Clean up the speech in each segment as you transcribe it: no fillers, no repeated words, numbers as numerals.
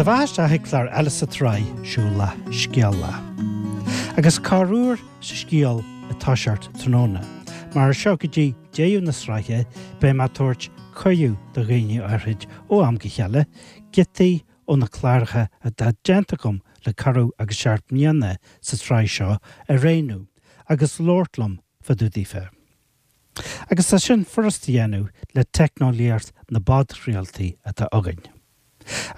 do bheatha isteach ag clár eile sa tsraith Siúlach Scéalach. Agus corruair sa scéal ag toiseacht tráthnóna, mar as seo go dtí deireadh na sraithe beidh mé ag tabhairt cuireadh do dhaoine áithrid ó am go chéile giotaí ó na cláracha atá déanta agam le corradh agus seacht mbliana sa tsraith seo a roghnú agus labhairt liom fá dtaobh daofa. Agus tá sin furast a dhéanamh le teicneolaíocht na bpodchraoltaí atá againn.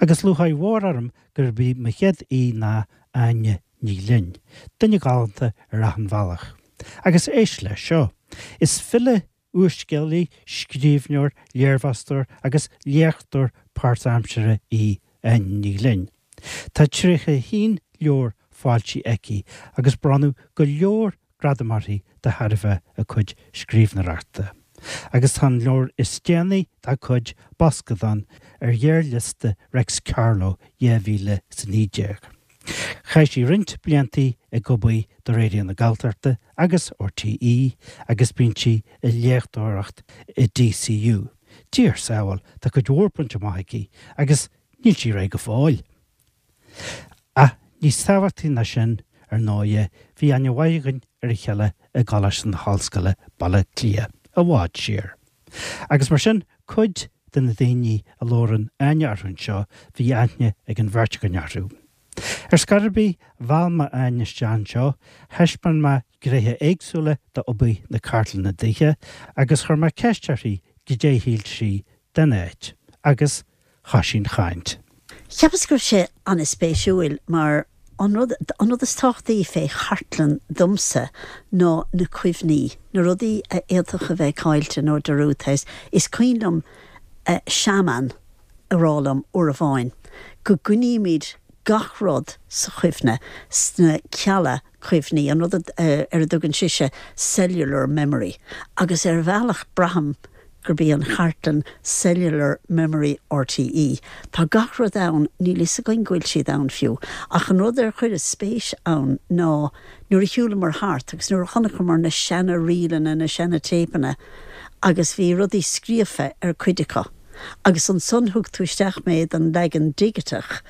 Agus lúcháir mhór orm gurb í mo chéad aoi ná Áine Ní Ghlinn, duine galánta ar achan bhealach. Agus éist leis seo, is file, úrscéalaí, scríbhneoir, léirmheastóir agus léachtóir páirtaimseartha í Áine Ní Ghlinn. Tá 31 leabhar foilsithe aici agus bronnadh go leor gradam uirthi de thairbhe a cuid scríbhneoireachta. Agus tá an leabhar is déanaí dá cuid, Boscadán, ar ghearrliosta Reics Carló 2019. Chaith sí roinnt bliantaí ag obair do Raidió na Gaeltachta agus RTÉ agus bíonn sí ag léachtóireacht i DCU. Dia ár sábháil, tá cuid mhór bainte amach aici agus níl sí réidh go fóill! Ach níos tábhachtaí ná sin, ar ndóighe, bhí aithne mhaith againn ar a chéile i gColáiste na hOllscoile, Baile Átha Cliath, i bhfad siar. Agus mar sin, cuid de na daoine a labhrann Áine orthu anseo, bhí aithne ag an bheirt againn orthu. Ar scor ar bith, mheall mé Áine isteach anseo, thaispeáin mé gnéithe éagsúla d'obair na cartlainne daoithe, agus chuir mé ceist uirthi goidé a shíl sí den áit, agus thoisigh an chaint. Cheapas go raibh sé an-spéisiúil mar an rud, an rud is tábhachtaí fé chartlann domsa ná na cuimhní, na rudaí a fhéadfadh a bheith caillte nó dearúdta. Is cuimhin liom seanbhean a rá liom uair amháin go gcoinnímid gach rud sa chuimhne, sna cealla cuimhní, an rud ar a dtugann sise cellular memory, agus ar bhealach braithim gurb í an chartlann cellular memory RTÉ. Tá gach rud ann, níl fhios againn go bhfuil siad ann fiú. Ach an rud ar chuireas spéis ann ná nuair a shiúlamar thart agus nuair a chonaiceamar na seana ríleanna, na seana téipeanna agus bhí rudaí scríofa ar cuid acu agus ansan thug tú isteach mé don leagan digiteach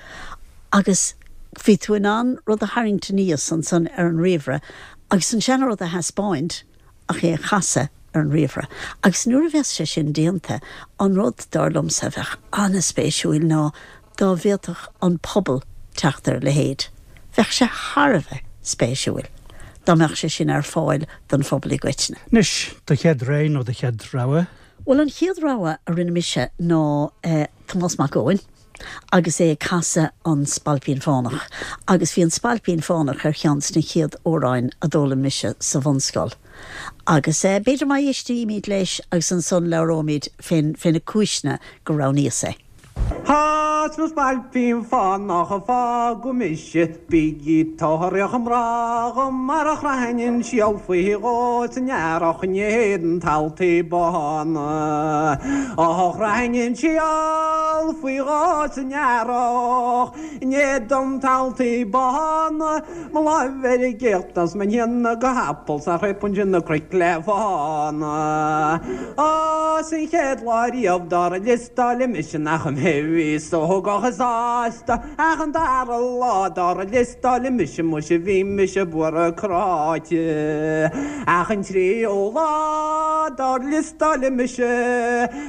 agus bhí tú in ann rud a tharraingt aníos ansan ar an ríomhaire agus an seana rud a thaispeáint ach é a chasadh ar an ríomhaire. Agus nuair a bheas sé sin déanta, an rud, dar liomsa, a bheadh an-spéisiúil ná dá bhféadfadh an pobal teacht ar a leithéid. Bheadh sé thar a bheith spéisiúil dá mbeadh sé sin ar fáil don phobal i gcoitinne. Anois, do chéad rogha nó do chéad rogha? Bhuel, an chéad rogha a rinne mise ná Tomás Mac Eoin. agus é ag casadh An Spailpín Fánach, agus bhí An Spailpín Fánach ar cheann de na chéad amhráin a d'fhoghlaim mise sa bhunscoil. Agus b'fhéidir má éistímid leis agus ansan labhróimid fé na cúiseanna gur roghnaíos é. Tá 's mo spailpín fánach a fágadh mise, bígí tóraíocht a mná dhom mar a chroithfinn an síol faoi dhó san earrach in éadan taltaí bána. Ó chroithfinn an síol faoi dhó san earrach in éadan taltaí bána, mo láimh ar an gcéachta 's mo shéanadh go hapall 's nach raibh ansin na cnoic le fána. Ó 's an chéad lá riamh dár liostáileadh mise nach mé a bhí sógach is sásta ach an dara lá dár liostáileadh mise muise bhí mise buartha cráite ach an tríú lá dár liostáileadh mise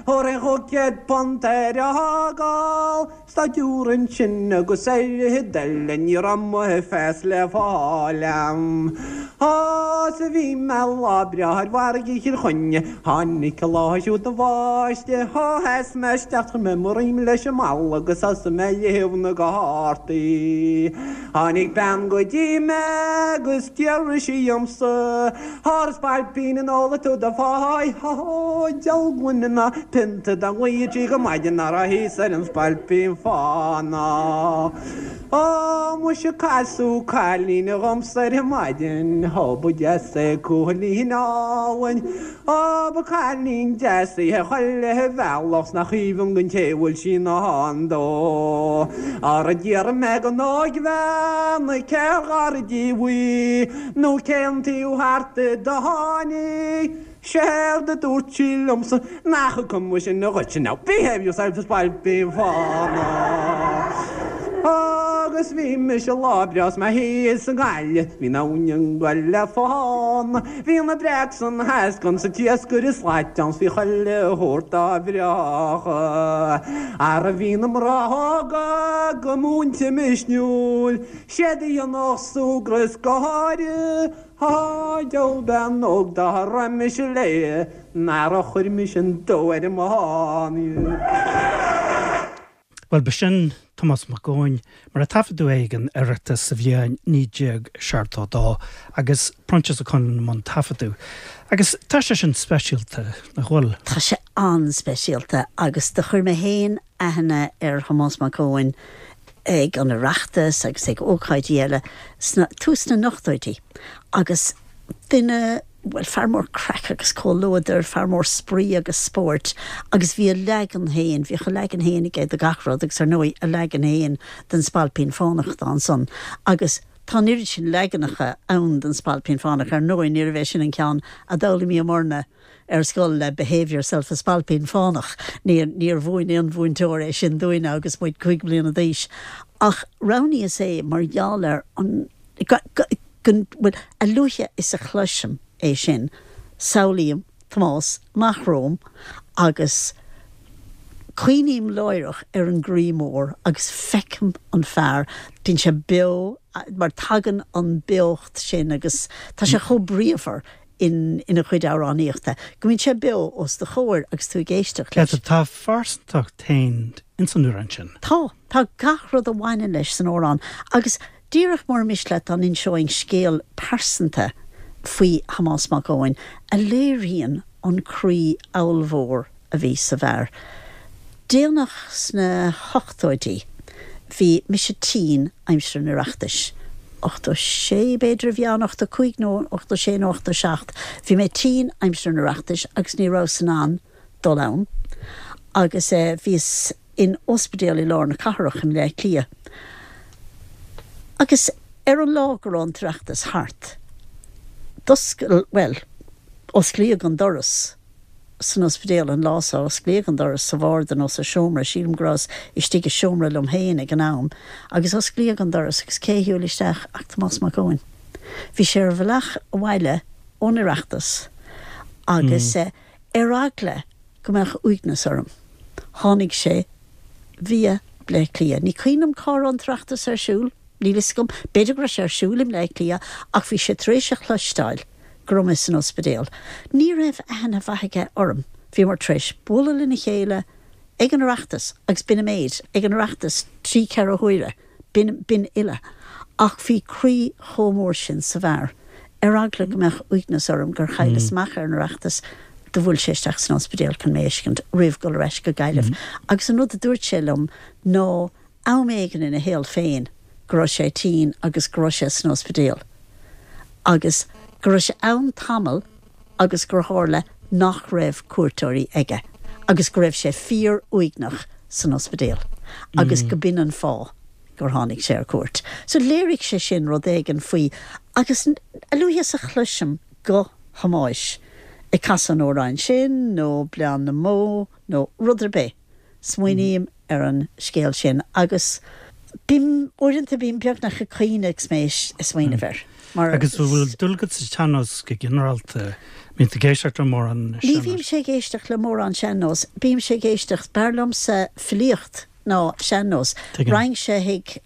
thabharfainn £500 ar a fhágáil Staidiúir ansin agus ar fhichid eile ní raibh mo phas le fáil a'm. Á, 's a bhí mé lá breá ar mhargaidh Chill Chainnigh, tháinig an lá siúd na bháistí, á, sheas mé isteach chuir mé mo dhroim leis an mballa agus thosaigh mé ag léamh na gcártaí. Tháinig bean go dtí mé agus d'fhiafraigh sí dhiomsa, Ar spailpín an ólfaidh tú do pháigh? Ó, diabhal gloine ná pionta dá nglaoití go maidin ná raibh thíos ar an spailpín fánach. Ó, muise casadh cailín dhomsa ar maidin, ó ba deas é cúilín álainn. Ó, ba cailín deas í a chuile bhealach 's nach aoibhinn don té a bhfuil sí i ndán dó. Ara d'fhiafraigh mé den óigbhean cér ghar díbh í. Nó cén taobh thart di do tháinig? Séard a dúirt sí liomsa nach cuma sin dhuitse now behave yourself a spailpín fánach. Agus bhí mise lá breá 's mé thíos i nGaillimh, bhí an abhainn ag goil le fán. Bhí na breac san eascann 's an t-iascaire slait ann 's bhí chuile shórt dá bhreách. Ara bhí na mná óga go múinte misniúil, 'Siad a dhéanfadh súgradh is gáire, Á, diabhal bean óg dá raibh mise léi, nara chuir mise an dubh ar an mbán. Bhuel, b'shin Tomás Mac Eoin, mar a taifeadadh é ag an Oireachtas sa bhliain 1972, agus Proinsias Ó Conghaile i mbun taifeadadh. Agus tá sé sin speisialta, nach bhfuil? Tá sé an-speisialta, agus do chuir mé féin aithne ar Thomás Mac Eoin ag an Oireachtas agus ag ócáidí eile sna, tús na n-ochtóidí, agus duine, bhuel, fear mór craic agus comhluadair, fear mór spraoi agus spóirt agus bhí a leagan féin, bhíodh a leagan féin aige de gach rud agus ar ndóigh a leagan féin den Spailpín Fánach atá ansan agus tá an oiread sin leaganacha ann den Spailpín Fánach, ar ndóigh níorbh é sin an ceann a d'fhoghlaimíomarna ar scoil le Behave Yourself a Spailpín Fánach, níor, níor mhúin aon mhúinteoir é sin dúinne agus muid cúig bliana d'aois ach roghnaíos é mar gheall ar an, go, go, go, bhuel, a luaithe is a chloisim é sin, samhlaím Tomás amach romham agus cuimhním láithreach ar an gcroí mór agus feicim an fear, bíonn sé beo, mar tagann an beocht sin agus tá sé chomh bríomhar in ina chuid amhránaíochta, go mbíonn sé beo os do chomhair agus tú ag éisteacht leis. Tá a phearsantacht féin ins an amhrán sin. Tá. Tá gach rud a bhaineann leis san amhrán agus Díreach mura miste leat dá n-inseoinn scéal pearsanta faoi Thomás Mac Eoin a léiríonn an croí ollmhór a bhí sa bhfear. Déanach sna hochtóidí bhí mise tinn aimsir an Oireachtais. 86 b'fhéidir a bhí ann, 85 nó 86 nó 87. Bhí mé tinn aimsir an Oireachtais agus ní rabhas in ann dul ann agus bhíos in ospidéal i lár na cathrach i mBleá Cliath. Agus ar an lá go raibh an tOireachtas thart, d'oscail, bhuel, osclaíodh an doras san ospidéal an lá so, osclaíodh an doras sa bharda nó sa seomra, sílim go rabhas istigh i seomra liom féin ag an am, agus osclaíodh an doras agus cé a shiúil isteach ach Tomás Mac Eoin. Bhí sé ar a bhealach abhaile ón Oireachtas agus ar eagla go mbeadh uaigneas orm. Tháinig sé via Bleá Cliath. Ní cuimhin liom cá raibh an tOireachtas ar siúl, níl fhios agam, b'fhéidir go raibh sé ar siúl i mBleá Cliath ach bhí sé tar éis a chloisteáil go raibh mé san ospidéal. Ní raibh aithne mhaith aige orm. Bhíomar tar éis bualadh lena chéile ag an Oireachtas agus b'in an méid, ag an Oireachtas trí ceithre huaire. B'in, b'in uile. Ach bhí croí chomh mór sin sa bhfear. Ar eagla go mbeadh uaigneas orm gur chailleas amach ar an Oireachtas, do bhuail sé isteach san ospidéal chun mé a fheiscint roimh dhul ar ais go Gaillimh. Agus an rud a dúirt sé liom ná am éigin ina shaol féin go raibh sé tinn agus go raibh sé san ospidéal agus go raibh sé ann tamall agus gur tharla nach raibh cuairteoirí aige agus go raibh sé fíor-uaigneach san ospidéal agus go b'in an fáth gur tháinig sé ar cuairt. So léirigh sé sin rud éigin faoi agus a luaithe is a chloisim guth Thomáis ag casadh an amhráin sin nó Bleán na mBó nó rud ar bith, Smaoiním ar an scéal sin agus bím, uaireanta bím beagnach ag caoineadh agus mé ag smaoineamh air. Mar. Agus an bhfuil dúil agat sa tsean-nós go ginearálta? Mbíonn tú ag éisteacht le mórán sean-nós? Ní bhímse ag éisteacht le mórán sean-nós. Bímse ag éisteacht, b'fhearr liomsa filíocht ná sean-nós. Raghainnse chuig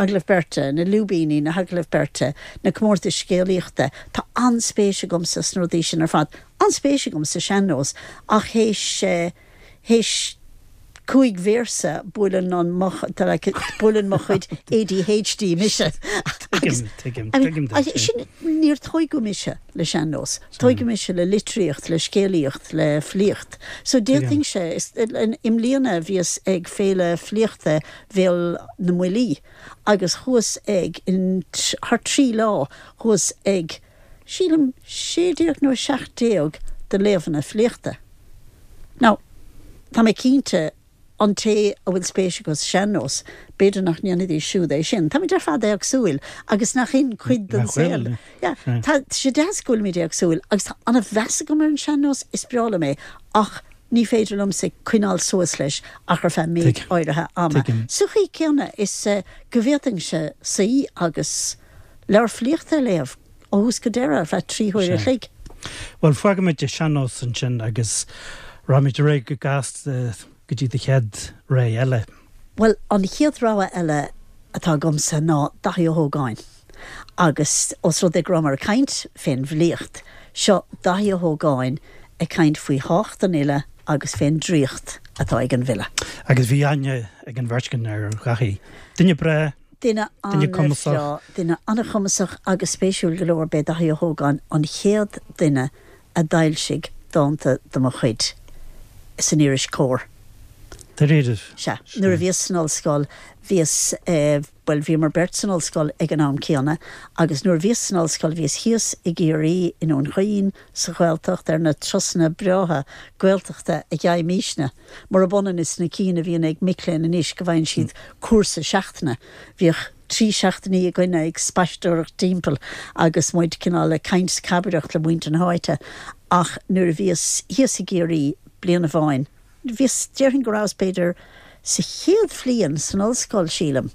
agallaimh beirte, na lúibíní, na hagallaimh beirte, na comórtais scéalaíochta. Tá an-spéis agamsa sna rudaí sin ar fad. An-spéis agam sa sean-nós ach théis, Théis 5 véarsa buaileann an mo like buaileann mo chuid ADHD mise. Tuigim, tuigim, tuigim duit sin. Sin, níor tóigeadh mise le sean-nós. Tóigeadh mise le litríocht, le scéalaíocht, le filíocht. So d'fhéadfainnse, i mbliana bhíos ag Féile Filíochta Bhéal na mBuillí agus chuas ag, in thar 3 lá, chuas ag, sílim, 16 nó 17 de léamhanna filíochta. Now, tá mé cinnte, an té a bhfuil spéis acu sa sean-nós, b'fhéidir nach ndéanfaidís siúd é sin. Táimid ar fad éagsúil agus nach in cuid den saol? Yeah, tá sé deas go bhfuilimid éagsúil agus tá an-mheas agam ar an sean-nós, is breá liom é, ach. Ní féidir liomsa coinneáil suas leis ach ar feadh méid áirithe ama. Sa chaoi céanna is go bhféadfainnse suí agus leabhar filíochta a léamh ó thús go deireadh ar feadh 3 huaire a chloig. Bhuel, fágfaimid an sean-nós ansin agus raghaimid ar aghaidh go gasta go dtí do chéad rogha eile. Bhuel, an chéad rogha eile atá agamsa ná Daithí Ó hÓgáin. Agus os rud é go rabhamar ag caint fén bhfilíocht, seo Daithí Ó hÓgáin ag caint faoi thábhacht an fhile agus fén draíocht atá ag an bhfile. Agus bhí aithne ag an bheirt againn ar Dhaithí. Duine breá, Duine duine cumasach. an-bhreá, duine an-chumasach agus spéisiúil go leor, b'é Daithí Ó hÓgáin an chéad duine a d'fhoilsigh dánta de mo chuid san iris Comhar. Dáiríre? Sea. Nuair a bhíos san ollscoil, bhíos, bhuel, bhíomar beirt san ollscoil ag an am céanna agus nuair a bhíos san ollscoil bhíos thíos i gCiarraí, i nDún Chaoin, sa Ghaeltacht, ar na turasanna breátha Gaeltachta a gheibhimísne, murab ionann is na cinn a bhíonn ag mic léinn anois go bhfaigheann siad cúrsa seachtaine. Bhíodh 3 seachtainí againne ag spaisteoireacht timpeall agus muid cineál ag caint 's cabaireacht le muintir na háite ach nuair a bhíos thíos i gCiarraí bliain amháin, Bhíos, déarfainn go rabhas b'fhéidir sa chéad bhliain san ollscoil, sílim,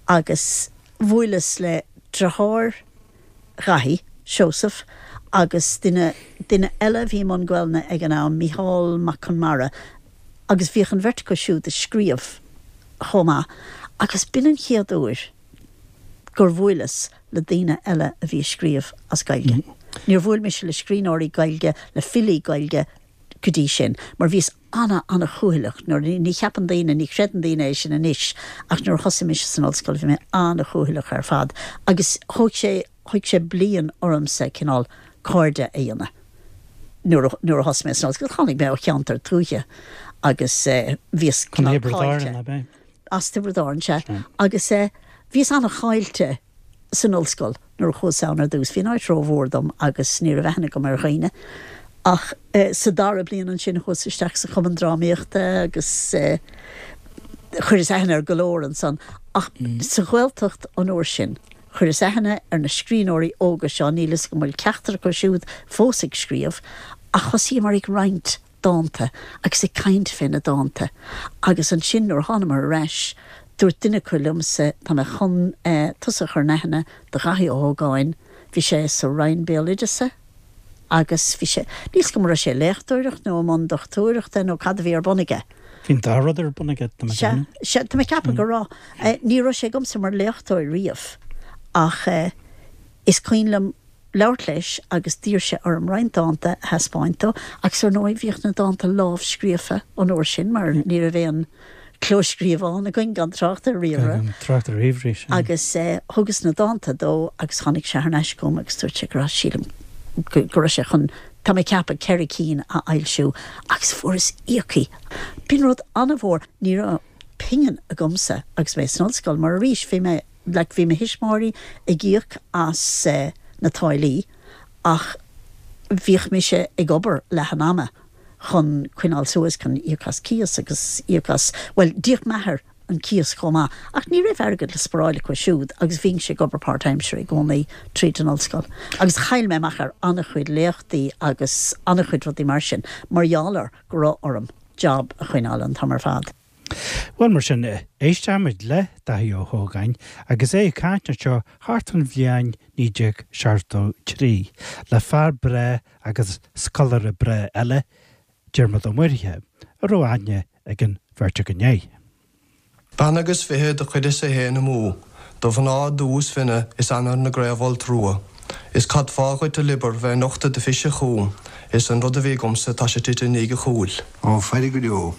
agus bhuaileas le deartháir Dhaithí, Seosamh, agus duine, duine eile a bhí i mbun Gaelainne ag an am, Mícheál Mac Conmara, agus bhíodh an bheirt acu siúd ag scríobh chomh maith, agus b'in an chéad uair gur bhuaileas le daoine eile a bhí ag scríobh as Gaeilge. Níor bhuail mise le scríbhneoirí Gaeilge, le filí Gaeilge, go dtí sin, mar bhíos ana-ana-chúthaileach nuair, ní cheapann daoine, ní chreideann daoine é sin anois, ach nuair a thosaigh mise san ollscoil bhí mé ana-chúthaileach ar fad agus thóg sé, thóg sé bliain ormsa cineál cairde a dhéanamh nuair a, nuair a thosaigh mé san ollscoil. Tháinig mé ó cheantar tuaithe agus bhíos cineál caillte. Thiobraid Árann, ab é? As Tiobraid Árann, sea. Agus bhíos ana-chaillte san ollscoil nuair a chuas ann ar dtús. Bhí an áit rómhór dom agus ní raibh aithne agam ar dhaoine. Ach sa dara bliain ansin chuas isteach sa chumann drámaíochta agus chuireas aithne ar go leor ansan. Ach sa Ghaeltacht an uair sin, chuireas aithne ar na scríbhneoirí óga seo, níl fhios agam an bhfuil ceachtar acu siúd fós ag scríobh, ach thosaíomar ag roinnt dánta agus ag caint fé na dánta agus ansin nuair a thánamar ar ais dúirt duine acu liomsa tá mé chun tusa a chur in aithne do Dhaithí Ó hÓgáin, bhí sé sa Roinn Béaloideasa agus bhí sé, níl 's agam an raibh sé ag léachtóireacht nó i mbun dochtúireachta nó cad a bhí ar bun aige. Bhí an dá rud ar bun aige, tá mé ag Sea, déanamh. sea, tá mé ag ceapadh go raibh. Ní raibh sé agamsa mar léachtóir riamh ach is cuimhin liom, labhairt leis agus d'iarr sé orm roinnt dánta a thaispeáint dó agus ar ndóigh bhíodh na dánta lámhscríofa an uair sin mar ní raibh aon clóscríobhán againn gan trácht ar ríomhaire. Gan trácht ar ríomhairí, sea. Agus thugas na dánta dó agus tháinig sé thar n-ais chugam agus dúirt sé go raibh, sílim, go raibh sé chun, tá mé ag ceapadh, 4 cinn a fhoilsiú agus fuaireas íoctha. B'in rud an-mhór. Ní raibh pingin agamsa agus mé san ollscoil mar arís bhí mé, Like bhí mo thuismitheoirí ag íoc as na táillí ach bhíodh mise ag obair leath an ama chun coinneáil suas, chun íoc as cíos agus íoc as, bhuel d'íoc m'athair an cíos chomh maith ach ní raibh airgead le sparáil acu siúd agus bhínnse ag obair páirtaimseartha i gcónaí tríd an ollscoil agus chaill mé amach ar an-chuid léachtaí agus an-chuid rudaí mar sin mar gheall ar go raibh orm job a choinneáil an t-am ar fad. Bhuel, mar sin, éistfimid le Daithí Ó hÓgáin agus é ag caint anseo thart fán bhliain 1973 le fear breá agus scoláire breá eile, Diarmuid Ó Muirthile, a raibh aithne ag an bheirt againn air. Bean agus fiche do chuireas-sa fhéin amú, Do mhná dubh is finne is ainnir na gcraobh-fholt rua, Is cad fáth dhuit a liobar bheith nochtadh do phise chugam, Is an rud a bhí agamsa tá sé tite i ndiaidh a chúil. Ó, faire go deo.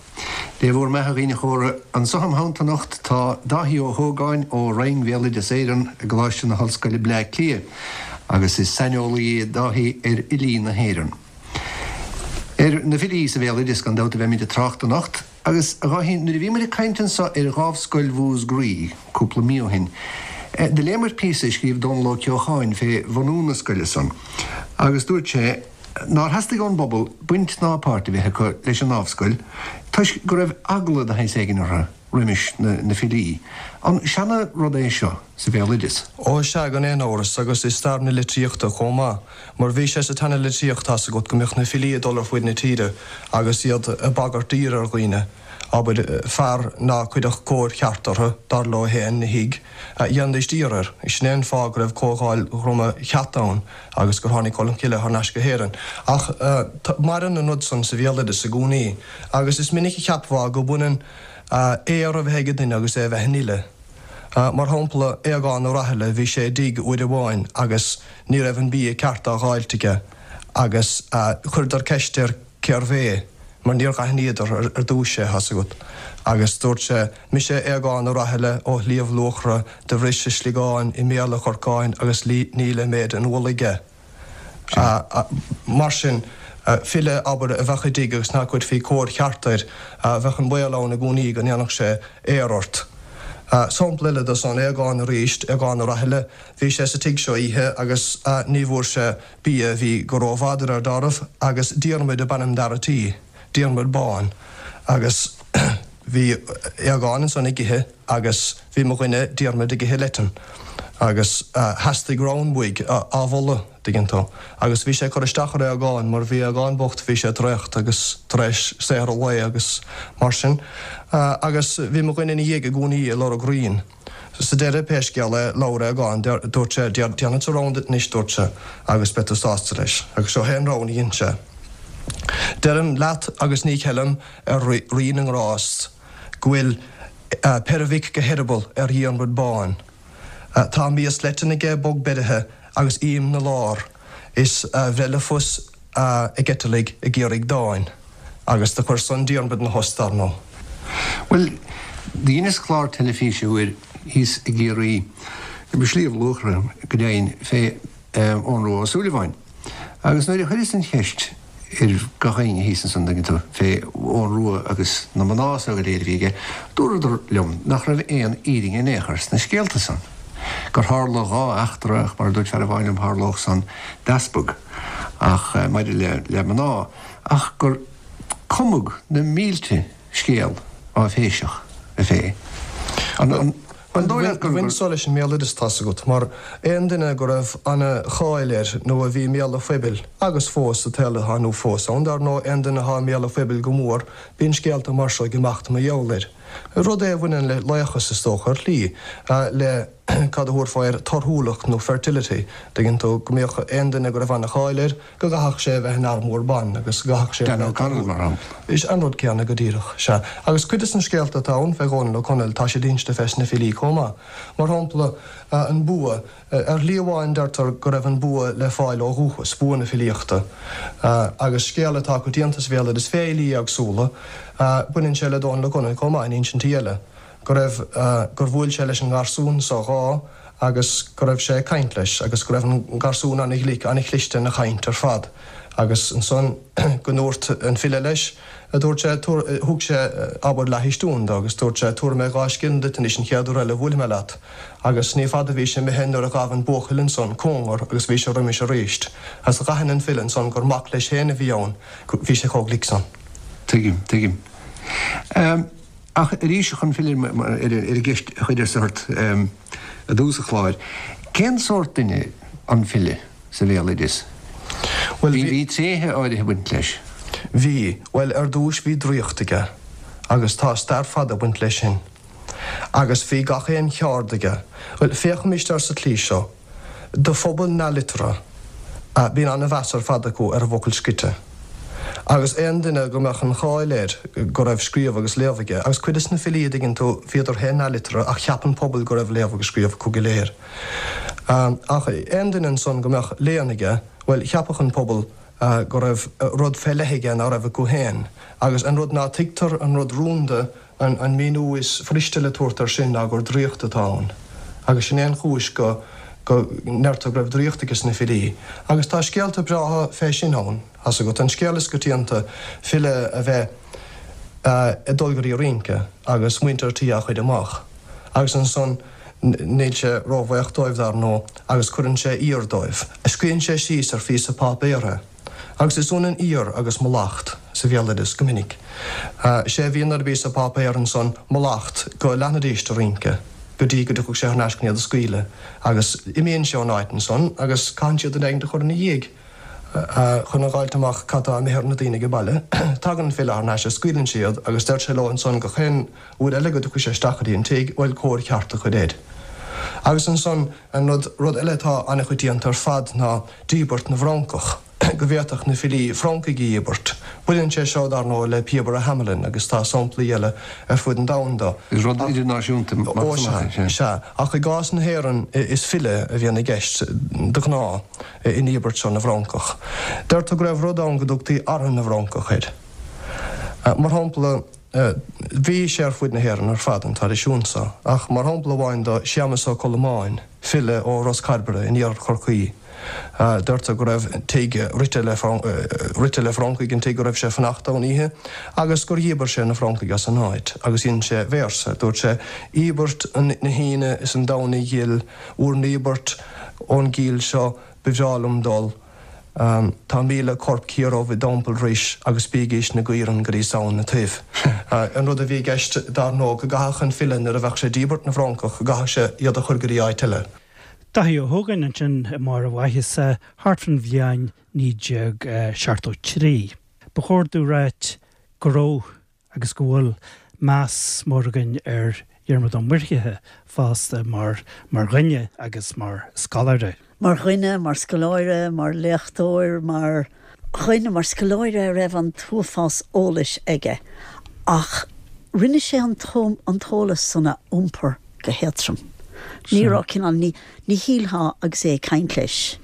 Dé bhúr mbeatha, a dhaoine chóra. Anso im theannta anocht tá Dáithí Ó hÓgáin ó Roinn Bhéaloideas Éireann i gColáiste na hOllscoile Bleá Cliath agus is saineolaí é Dáithí ar fhilí na hÉireann. Ar na filí sa bhéaloideas gan dabht a bheimid ag trácht anocht agus, a Dháithí, nuair a bhí muid ag caint anso ar Dhámhscoil Mhúscraí cúpla mí ó shin, do léamair píosa a scríobh Dónal Ó Ceocháin fé bhunú na scoile san agus dúirt sé, nár theastaigh ón bpobal baint ná páirt a bheith acu leis an ndámhscoil toisc go raibh eagla de shaghas éigin orthu. roimis na filí. An seana rud é seo sa bhéaloideas? Ó sea, gan aon amhras, agus i stair na litríochta chomh maith. Mar bhí sé sa tseana-litríocht, tá's agat, go mbíodh na filí ag dul ar fuaid na tíre agus iad ag bagairt daoir ar dhaoine. Abair, fear ná cuirfeadh cóir cheart orthu, dar leo féin, 'na thigh, dhéanfaidís daor air. Sin é an fáth go raibh Comhdháil Dhroma Cheat ann agus gur tháinig Colm Cille thar n-ais go hÉirinn. Ach maireann an rud san sa bhéaloideas i gcónaí agus is minic a cheapfá go mbaineann aor a bheith ag duine agus é a bheith ina fhile. Mar shampla, Aogán Ó Rathaille, bhí sé i dtigh uair amháin agus ní raibh an bia ceart á dháilt aige agus chuireadar ceist air cérbh é, mar níor dh'aithníodar ar dtúis é, thá's agat. Agus dúirt sé, Mise Aogán Ó Rathaille ó Shliabh Luachra, do bhris a sliogán i mbéal a chorcáin agus ní le méid an ualaigh é. Mar sin, file, abair, a bheadh i dtigh agus ná cuirfí cóir cheart air, bheadh an baol ann i gcónaí go ndéanfadh sé aor ort. Sampla eile de san, Aogán arís, Aogán Ó Rathaille, bhí sé sa tigh seo oíche agus ní bhfuair sé bia, bhí go rómhada ar dealramh, agus Diarmuid ab ainm d'fhear a' tí, Diarmuid Bán, agus bhí Aogán ansan ag ithe agus bhí mo dhuine Diarmuid ag ithe leitean agus theastaigh rann uaidh á mholadh, dtuigeann tú, agus bhí sé ag cur isteach ar Aogán mar bhí Aogán bocht, bhí sé traochta agus tar éis saothar an lae agus mar sin agus bhí mo dhuine ina dhiaidh i gcónaí ag lorg raoin. Sa deireadh, pé scéal é, labhair Aogán, dúirt sé, Déanfadsa rann duit anois, dúirt sé, agus beidh tú sásta leis. Agus seo é an rann a dhein sé. Deirim leat agus ní cheilim ar Rí na nGrást go bhfuil peirbhic go heireaball ar Dhiarmaid Bán. Tá mias leitean aige bog beirithe agus ím 'na lár is a bhreith le fios ag eiteallaigh ag iarraidh dáin, agus do chuir san Diarmaid 'na thost, dar ndóigh. Bhuel, do dheineas clár teilifíse uair thíos i gCiarraí, i Sliabh Luachra go deimhin, fé Eoghan Rua Ó Súilleabháin. Agus nuair a chuireas an cheist ar gach éinne thíos ansan, dtuigeann tú, fé Eoghan Rua agus na mná so go léir a bhí aige, dúradar liom nach raibh aon fhírinne in aon chor sna scéalta san. Gur tharla dhá eachtra, ach mar a dúirt fear amháin liom, tharlódh san d'easpag. Ach maidir le le mná, ach gur cumadh na mílte scéal áiféiseach fé. An dóigh leat gur. Bhain so leis an mbéaloideas, tá's agat, mar aon duine go raibh ana-cháil air nó a bhí i mbéal an phoibil, agus fós sa tsaol atá inniu fós ann, dar ndóigh, aon duine atá i mbéal an phoibil go mór, bíonn scéalta mar seo ag imeacht mar gheall air. Rud é a bhaineann le laochas, is dócha, ar shlí, le. cad a thabharfá air, torthúlacht nó fertility, dtuigeann tú, go mbíodh aon duine go raibh ana-cháil air, go gcaithfeadh sé a bheith ina fhear mór ban agus go gcaithfeadh sé a Dan bheith O'Connell, mar shampla. Is an rud céanna go díreach, sea. Agus cuid des na scéalta atá ann fé Dhónal Ó Conaill, tá siad inste fés na filí chomh maith. Mar shampla, an bua. Ar shlí amháin deirtear go raibh an bua le fáil ó dhúchas, bua na filíochta. Agus scéal atá coitianta sa bhéaloideas fé fhilí éagsúla, baineann sé le Dónal Ó Conaill chomh maith in insintí eile. go raibh, gur bhuail sé leis an ngarsún so dhá agus go raibh sé ag caint leis agus go raibh an garsún ana-ghlic, ana-chliste ina chaint ar fad agus ansan go ndúirt an file leis, dúirt sé, tabhair, thug sé, abair, leathchistiún do agus dúirt sé, tabharfaidh mé 2 scilling duit anois an chéad uair eile a bhuailfidh mé leat agus ní fada a bhí sé imithe nuair a ghabh an buachaill ansan cóngar agus bhí sé roimis aríst agus dh'aithin an file ansan gur mac leis féin a bhí ann, bhí sé chomh glic san. Tuigim, tuigim. Ach arís, chun filleadh ar an gceist a chuireas ort i dtús an chláir, cén sórt duine an file sa bhéaloideas? Bhuel, bhí tréithe áirithe ag baint leis. Bhí. Bhuel, ar dtúis bhí draíocht aige, agus tá stair fada ag baint leis sin. Agus bhí gach aon cheárd aige. Bhuel, féachaimis air sa tslí seo. Do phobal neamhliteartha, bíonn an-mheas ar fad acu ar an bhfocal scrite. Agus aon duine go mbeadh an cháil air go raibh scríobh agus léamh aige, agus cuid des na filí, a dtuigeann tú, bhíodar féin neamhliteartha ach cheap an pobal go raibh léamh agus scríobh acu go léir. Ach aon duine ansan go mbeadh léann aige, bhuel, cheapfadh an pobal go raibh rud fé leith aige ná raibh acu féin. Agus an rud ná tuigtear, an rud rúnda, An míniú is fuiriste le tabhairt air sin ná gur draíocht atá ann. Agus sin é an chúis go go ndeirtear go raibh draíocht aige sna filí. Agus tá scéalta breátha fé sin ann, thá's agat. An scéal is coitianta, file a bheith ag dul go dtí rince agus muintir tí á chuir amach. Agus ansan níl sé róbhaoch dóibh, dar ndóigh, agus cuireann sé aoir dóibh. Scríobhann sé síos ar phíosa páipéir é. Agus is ionann aoir agus mallacht sa. sa bhéaloideas go minic. Sé a bhíonn ar an bpíosa páipéir ansan mallacht go leanfaidís de rince go dtí go dtiocfadh sé thar n-ais chun iad a scaoileadh agus imíonn sé ón áit ansan agus caitheann siad duine éigint a chur ina dhiaidh chun a dh'fháilt amach cad tá imithe ar na daoine age baile. Tagann an file thar n-ais is scaoileann sé iad agus deir sé leo ansan gach aon uair eile go dtiocfaidh sé isteach go dtí an tigh, bhuel cóir cheart a chur air. Agus ansan an rud, rud eile atá an-choitianta ar fad ná díbirt na bhFrancach. go bhféadfadh na filí Francaigh a dhíbirt. Baineann sé seo, dar ndóigh, le Píobaire Hamelin agus tá samplaí eile ar fud an domhain de. Is rud idirnáisiúnta Ó sea, sea. Ach i gcás na hÉireann is file a bhíonn i gceist de ghnáth i ndíbirt seo na bhFrancach. Deirtear go raibh rud ann go dtugtaí Artha na bhFrancach air. Mar shampla, bhí sé ar fuaid na hÉireann ar fad, an traidisiún seo, ach mar shampla amháin de, Séamas Ó Colmáin, file ó Ros Cairbre in iarthar Chorcaí, Deirtear go raibh tigh rite le rite le Francaigh an tigh go raibh sé ag fanacht ann oíche agus gur dhíbir sé na Francaigh as an áit agus dhein sé véarsa. Dúirt sé, Íobairt na hAoine is an Domhnaigh ghil, bhur ndíbirt ón gcill seo ba bhreá liom dul. Tá 1000 corp ciardhubh i dTeampall Rois agus bígís 'na gcaoirigh go dtí Samhain na Toibh. An rud a bhí i gceist, dar ndóigh, go gcaithfeadh an file nuair a bheadh sé ag díbirt na bhFrancach, go gcaithfeadh sé iad a chur go dtí áit eile. Dáithí Ó hÓgáin ansin i mbarr a mhaitheasa thart fán bhliain 1973. Ba chóir domh ráit go raibh agus go bhfuil meas mór againn ar Dhiarmaid Ó Muirthile fosta mar mar dhuine agus mar scoláire. Mar dhuine, mar scoláire, mar léachtóir, mar dhuine, mar scoláire a raibh an t-uafás eolais aige ach rinne sé an t-eolas san a iompar go héadtrom. Ní raibh cineál, ní, ní shílfeá agus é ag caint leis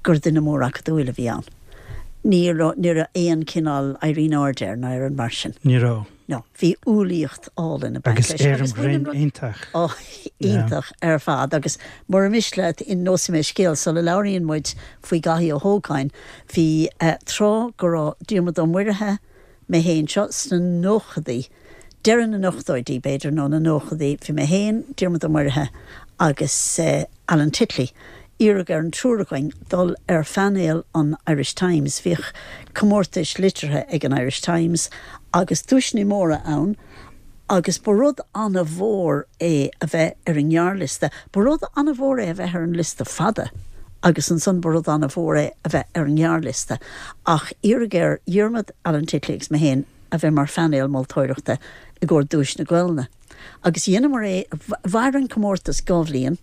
gur duine mór acadúil a bhí ann. Ní raibh, ní raibh aon cineál éirí in airde air ná aon rud mar sin. Ní raibh. No. Bhí umhlaíocht álainn ag baint leis. Agus éirim ghrinn iontach. Ó, iontach ar fad. Agus mura miste leat, inseoidh mé scéal sula labhraíonn muid faoi Dhaithí Ó hÓgáin. Bhí tráth go raibh Diarmuid Ó Muirithe, mé féin, seo sna nóchadaí, deireadh na n-ochtóidí, b'fhéidir, nó na nóchadaí, bhí mé féin, Diarmuid Ó Muirithe agus Alan Titley, iarradh ar an triúr againn dul ar phainéal an Irish Times. Bhíodh comórtais liteartha ag an Irish Times agus duaiseanna móra ann agus ba rud an-mhór é a bheith ar an ngearrliosta. Ba rud an-mhór é a bheith ar an liosta fada agus ansan ba rud an-mhór é a bheith ar an ngearrliosta. Ach iarradh ar Dhiarmaid, Alan Titley agus mé féin a bheith mar phainéal moltóireachta i gcomhair Duais na Gaelainne. Agus dheineamar é, mhair an comórtas dha bhliain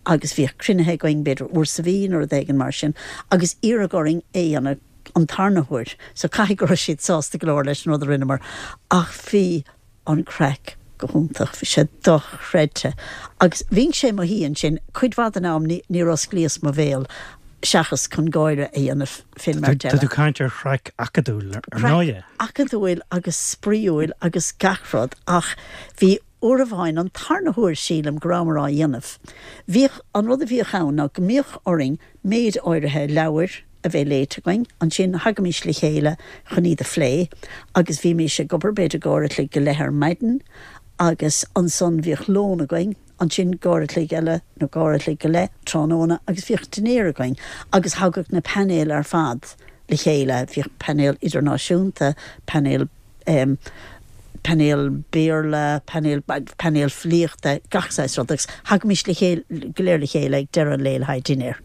agus bhíodh cruinnithe againn b'fhéidir uair sa mhí nó rud éigin mar sin agus iarradh orainn é a dhéanamh an tarna huair so caithfidh go raibh siad sásta go leor leis an rud a rinneamar ach bhí an craic go hiontach, bhí sé dochreidte agus bhínnse i mo shuí ansin cuid mhaith den am níor osclaíos mo bhéal seachas chun gáire a dhéanamh fén mbeirt eile. Tá tú ag caint ar chraic acadúil ar ndóighe. Acadúil agus spraíúil agus gach rud ach bhí uair amháin, an tarna huair sílim go rabhamar á dhéanamh, bhíodh, an rud a bhíodh ann ná go mbíodh orainn méid áirithe leabhair a bheith léite againn, ansin thagaimís le chéile chun iad a phlé agus bhímís ag obair b'fhéidir go uair a chloig go leith ar maidin agus ansan bhíodh lón againn, ansin go uair a chloig eile nó go uair a chloig go leith tráthnóna agus bhíodh dinnéar againn agus thagadh na painéil ar fad le chéile, bhíodh painéal idirnáisiúnta, painéal em painéal Béarla, painéal painéal filíochta, gach saghas rud agus thagaimís le chéile go léir le chéile ag deireadh an lae le haghaidh dinnéir.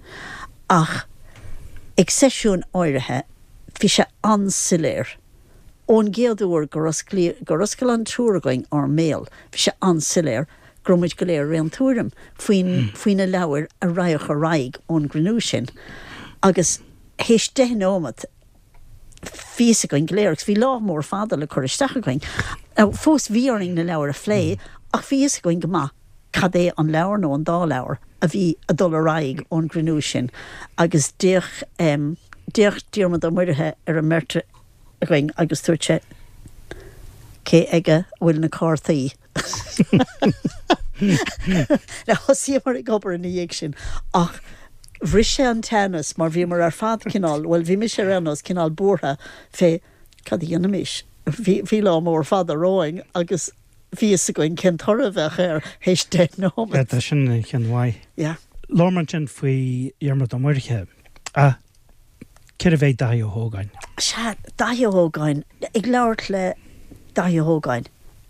Ach ag seisiúin áirithe bhí sé an-soiléir ón gcéad uair gur osclaíodh gur oscail an triúr againn ár mbéal, bhí sé an-soiléir go raibh muid go léir ar aon tuairim faoin faoi na leabhair a raghadh ar aghaidh ón gcruinniú sin agus théis deich nóimeat bhí fhios againn go léir agus bhí lá mór fada le cur isteach againn. Now fós bhí orainn na leabhair a phlé ach bhí fhios againn go maith cad é an leabhar nó an dá leabhar a bhí a dul ar aghaidh ón gcruinniú sin agus d'fhéach em d'fhéach Diarmuid Ó Muirithe ar an mbeirt againn agus dúirt sé cé aige a bhfuil na cártaí? Now thosaíomar ag obair ina dhiaidh sin ach bhris sé an teannas mar bhíomar ar fad cineál, bhuel bhí mise ar aon nós cineál buartha fé cad a dhéanfaimis. Bhí, bhí lá mór fada romhainn agus bhí fhios againn cén toradh a bheadh air théis deich nóiméad. Tá sin ina cheann mhaith. Yeah. Labhair muid ansin faoi Dhiarmaid Ó Muirithe. Ach cérbh é Dáithí Ó hÓgáin? Sea, Daithí Ó hÓgáin. Ag labhairt le Daithí Ó hÓgáin,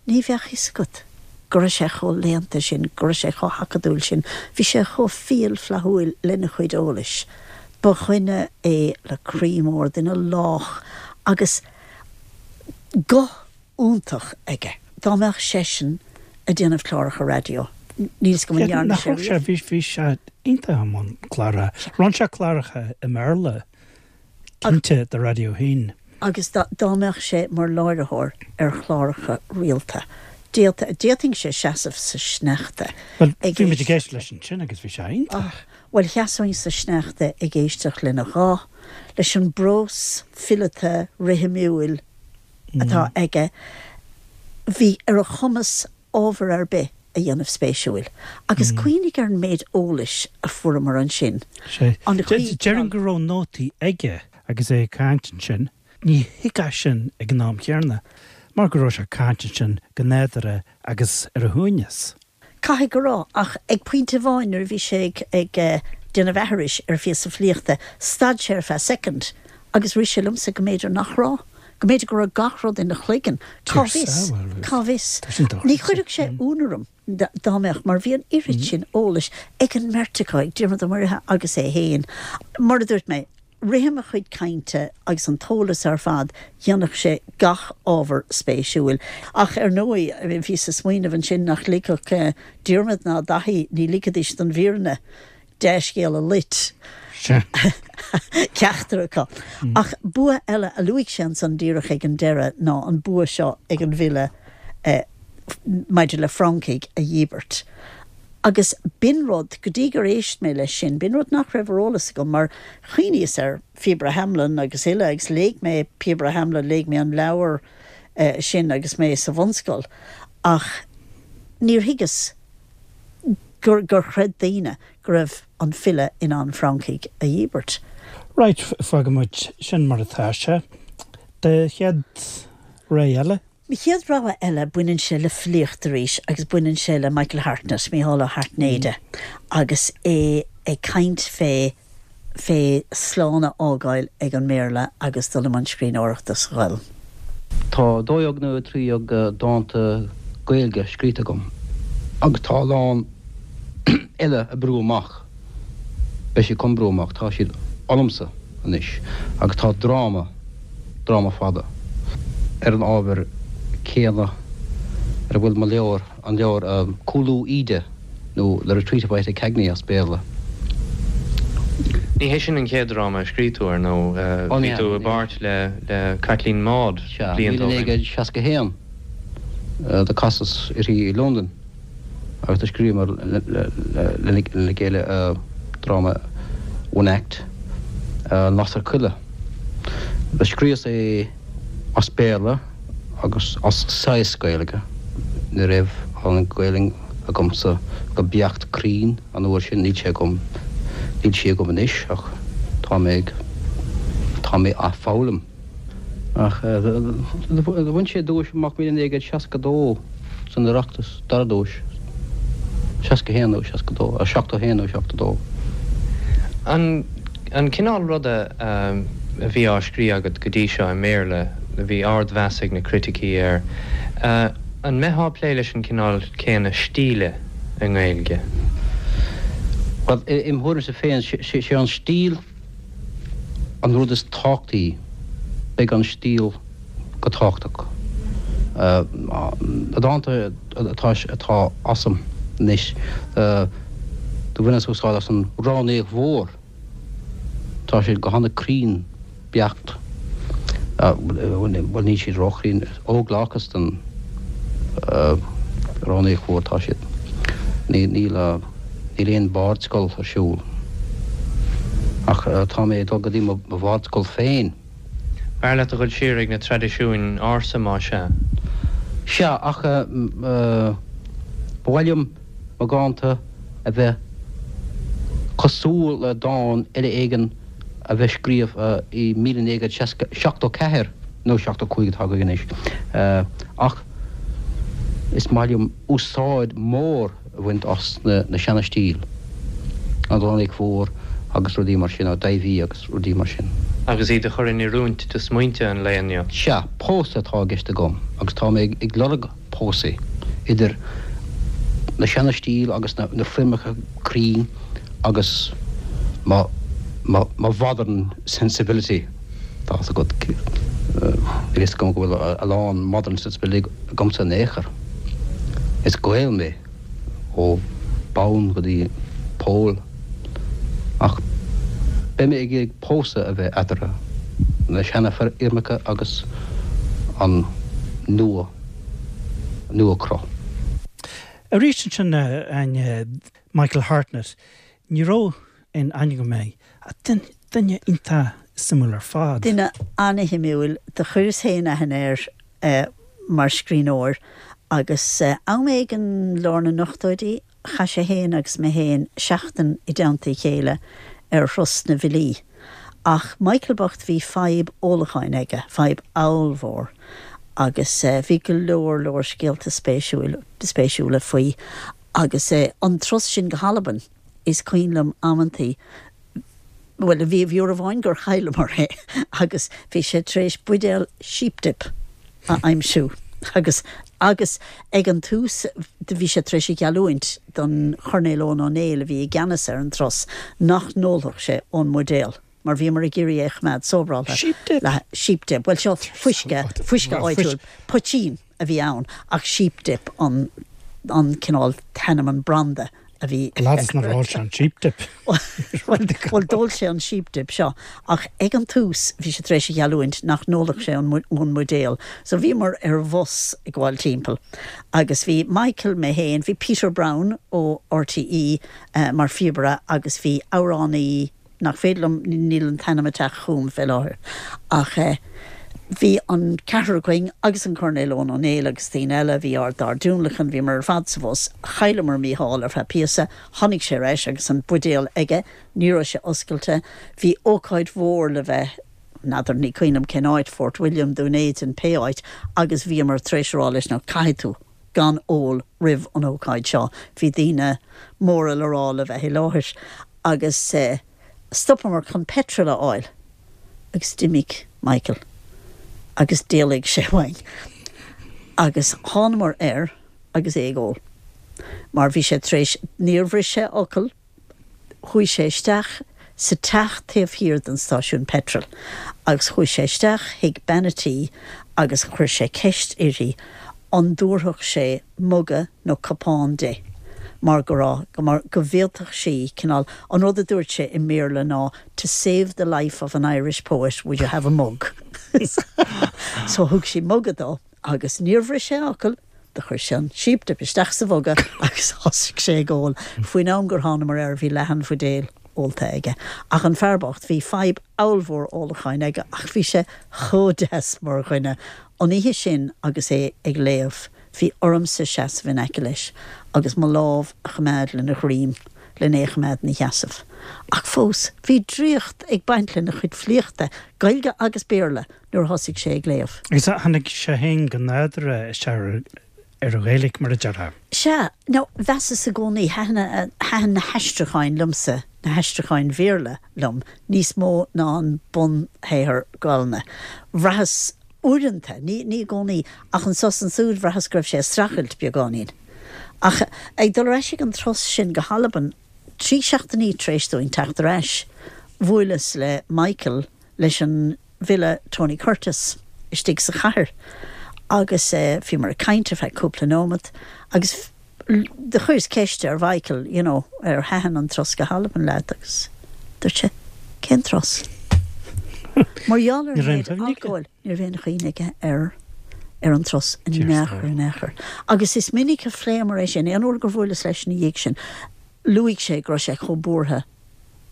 ní bheadh fhios agat go raibh sé chomh léannta sin, go raibh sé chomh hacadúil sin. Bhí sé chomh fial flaithiúil lena chuid eolais. Ba dhuine é le croí mór, duine lách agus guth iontach aige. Dá mbeadh seisean ag déanamh cláracha raidió, níl 's agam an ndearna sé riamh. Bhí, bhí sé iontach i mbun cláracha. Rinne sé cláracha i mBéarla, cinnte, do Raidió 1. Agus dá mbeadh sé mar láithreoir ar chláracha rialta, d'fhéadfainnse seasamh sa sneachta Bhuel, ag bhí muid ag éisteacht leis ansin agus bhí sé iontach. Bhuel, sheasóinn sa sneachta ag éisteacht lena ghuth, leis an bprós fileata rithimiúil atá aige. Bhí ar a chumas ábhar ar bith a dhéanamh spéisiúil. Agus cuimhnigh ar an méid eolais a fuaireamar ansin. Sea. Déarfainn go raibh nótaí aige agus é ag caint ansin. Ní thuigfeá sin ag an am chéanna, mar go raibh sé ag caint ansin go nádúrtha agus ar a shuaimhneas. Caithfidh go raibh, ach ag pointe amháin nuair a bhí sé ag déanamh aithris ar phíosa filíochta, stad sé ar feadh soicind agus rith sé liomsa go mb'fhéidir nach raibh, go mb'fhéidir go raibh gach rud ina chloigeann. Cá bhfios? Cá bhfios? Ní chuirfeadh sé ionadh orm dá mbeadh, mar bhí an oiread sin eolais ag an mbeirt acu, ag Diarmuid Ó Muirithe agus é féin. Mar a dúirt mé, rithim a chuid cainte agus an t-eolas ar fad, dhéanfadh sé gach ábhar spéisiúil. Ach ar ndóigh, bhíos ag smaoineamh ansin nach ligfeadh Diarmuid ná Daithí, ní ligfidís don bhfírinne dea-scéal a loit ceachtar acu. Ach bua eile a luaigh sé ansan díreach ag an deireadh ná an bua seo ag an bhfile maidir le francaigh a dhíbirt. Agus b'in rud, go dtí gur éist mé leis sin, b'in rud nach raibh ar eolas agam, mar chuimhníos ar Phíobaire Hamelin agus uile, agus léigh mé Píobaire Hamelin, léigh mé an leabhar sin agus mé sa bhunscoil, ach níor thuigeas gur, gur chreid daoine go raibh an file in ann francaigh a dhíbirt. Right, fágfaidh muid sin mar atá sé. Do chéad rogha eile? Mo chéad rogha eile, baineann sé le filíocht arís agus baineann sé le Michael Hartnett, Mícheál Ó hAirtnéide, agus é ag caint fé fé slán a fhágáil ag an mBéarla agus dul i mbun scríbhneoireachta sa Ghaelainn. Tá 12 nó 13 dánta Gaeilge scríte agam agus tá a lán eile ag brú amach, beidh siad chun brú amach, tá siad ionamsa anois agus tá dráma, dráma fada, ar an ábhar céanna ar a bhfuil mo leabhar, an leabhar Cúlú Íde nó The Retreat of Ita Cagney as Béarla. Ní hé sin an chéad dráma a scríobh tú, ar ndóigh. Bhí tú i bpáirt le Caitlín Maude blianta ó shin. Sea, 1961 do casas uirthi i Londain. agus do scríobhamar lena chéile dráma one act, An Lasair Choille. Do scríobhas é as Béarla agus as saghas Gaeilge. Ní raibh an Ghaelainn agamsa go beacht cruinn an uair sin, níl sé agam, níl sí agam anois ach tá mé ag, tá mé á foghlaim. Ach do bhain sé duais amach 1962 san Oireachtas, dara duais, 61 nó 62, 71 nó 72. An an cineál ruda a bhí á scríobh agat go dtí seo i mBéarla, a bhí ardmheas ag na criticí air, an mbeifeá ag plé leis an cineál céanna stíle i nGaeilge? Bhuel, im thuairimse féin, sé an stíl An rud is tábhachtaí, beidh an stíl go tábhachtach. Na dánta atá atá asam anois, do bhaineas úsáid as an Ránaíocht Mhór. Tá siad go hana-cruinn beacht. Bhuel, níl siad ró-chruinn. Óglachas den Ránaíocht Mhór atá siad. Níl. Níl aon bhardscoil ar siúl. Ach tá mé ag dul go dtí mo bhardscoil féin. B'fhearr leat a dhul siar ag na traidisiúin ársa, más ea? Sea, ach ba mhaith liom mo dhánta a bheith cosúil le dán eile éigin a bheith scríofa i 1974 nó 75 atá againn anois. Ach is maith liom úsáid mhór a bhaint as na seana-stíl, an Ránaíocht Mhór agus rudaí mar sin, ó Dáibhí agus rudaí mar sin. Agus iad a chur in oiriúint do smaointe an lae inniu. Sea, pósadh atá i gceist agam agus tá mé ag lorg pósadh idir na seana-stíl agus na foirmeacha cruinn agus mo mhodern sensibility, tá fhios agat, níl fhios agam go bhfuil a lán modern sensibility agamsa in aon chor. Is Gael mé. ó bhonn go dtí poll, ach beidh mé ag iarraidh pósadh a bheith eatarthu, na seana-fhoirmeacha agus an nua, nua-chruth. Arís ansin, a Áine, Michael Hartnett, ní raibh aon aithne agam air, ach duine iontach suimiúil ar fad. Duine ana-shuimiúil. Do chuireas féin aithne air mar scríbhneoir agus am éigin lár na n-ochtóidí chaith sé féin agus mé féin seachtain i dteannta a chéile ar thuras na bhfilí. Ach Michael bocht bhí fadhb ólacháin aige, fadhb ollmhór agus bhí go leor leor scéalta spéisiúla faoi agus an turas sin go hAlbain. Is cuimhin liom amantaí, bhuel, bhí uair amháin gur chailleamar é agus bhí sé tar éis buidéal sheep dip a aimsiú agus, agus ag an tús bhí sé tar éis a gheallúint don Choirnéal Eoghan Ó Néill a bhí i gceannas ar an turas nach n-ólfadh sé ón mbuidéal mar bhíomar ag iarraidh é a choimeád sóbráltha. Sheep dip? Sheep dip, bhuel seo fuisce, fuisce áitiúil, poitín. a bhí ann ach sheep dip an an cineál t-ainm an branda a bhí Leadas nár ól sé an sheep dip. Bhuel d'ól sé an sheep dip seo ach ag an tús bhí sé tar éis a gheallúint nach n-ólfadh sé ón mbuidéal so bhíomar ar bhus ag gabháil timpeall agus bhí Michael, mé féin, bhí Peter Browne ó RTÉ mar phíobaire agus bhí amhránaí nach féidir liom, níl an t-ainm ag teacht chugam fé láthair, ach bhí an ceathrar againn agus an Coirnéal Eoghan Ó Néill agus daoine eile, bhí ár dár dtionlacan, bhíomar ar fad sa bhus, chailleamar Mícheál ar feadh píosa, tháinig sé ar ais agus an buidéal aige, ní raibh sé oscailte, bhí ócáid mhór le bheith, n'fheadar, ní cuimhin liom cén áit, Fort William, Dún Éideann, pé áit, agus bhíomar tar éis a rá leis, now caithfidh tú gan ól roimh an ócáid seo, bhí daoine móra le rá le bheith i láthair agus stopamar chun petrol a fháil agus d'imigh Michael agus d'éalaigh sé uainn agus thánamar air agus é ag ól mar bhí sé tar éis, níor bhris sé fhocal, Chuaigh sé isteach sa teach taobh thiar den stáisiún peitril agus chuaigh sé isteach chuig bean a' tí agus chuir sé ceist uirthi an dtabharfadh sé muga nó cupán di mar go raibh, mar go bhféadfadh sí, cineál, an rud a dúirt sé i mBéarla ná to save the life of an Irish poet would you have a mug? So thug sí muga dó. Agus níor bhris sé fhocal, do chuir sé an sheep dip isteach sa mhuga agus thosaigh sé ag ól. Faoin am gur thánamar air bhí leath an bhuidéil ólta aige. Ach an fear bocht, bhí fadhb ollmhór ólacháin aige ach bhí sé chomh deas mar dhuine. An oíche sin agus é ag léamh, bhí ormsa seasamh in aice leis agus mo lámh a choimeád lena dhroim len é a choimeád ina sheasamh. Ach fós, bhí draíocht ag baint lena chuid filíochta, Gaeilge agus Béarla, nuair a thosaigh sé ag léamh. Agus tháinig sé féin go nádúrtha isteach ar an Ghaeilge, mar a déarfá. Sea. Now, mheasas i gcónaí, thaitin, thaitin na haistriúcháin liomsa, na haistriúcháin Bhéarla liom, níos mó ná an bunshaothar Gaelainne. Bhraitheas uaireanta, ní, ní i gcónaí, ach anso is ansúd, bhraitheas go raibh sé ag streachailt beagáinín. Ach ag dul ar ais ag an turas sin go hAlbain, 3 seachtainí tar éis dúinn teacht ar ais, bhuaileas le Michael, leis an bhfile Tony Curtis istigh sa chathair agus bhíomar ag caint ar feadh cúpla nóimeat agus do chuireas ceist ar Mhichael you know ar thaitin an turas go hAlbain leat agus dúirt sé cén turas? Mar gheall ar an méid alcóil ní raibh aon chuimhne aige ar ar an turas in aon chor in aon chor. Agus is minic a phléamar é sin, aon uair gur bhuaileas leis ina dhiaidh sin luaigh sé go raibh sé chomh buartha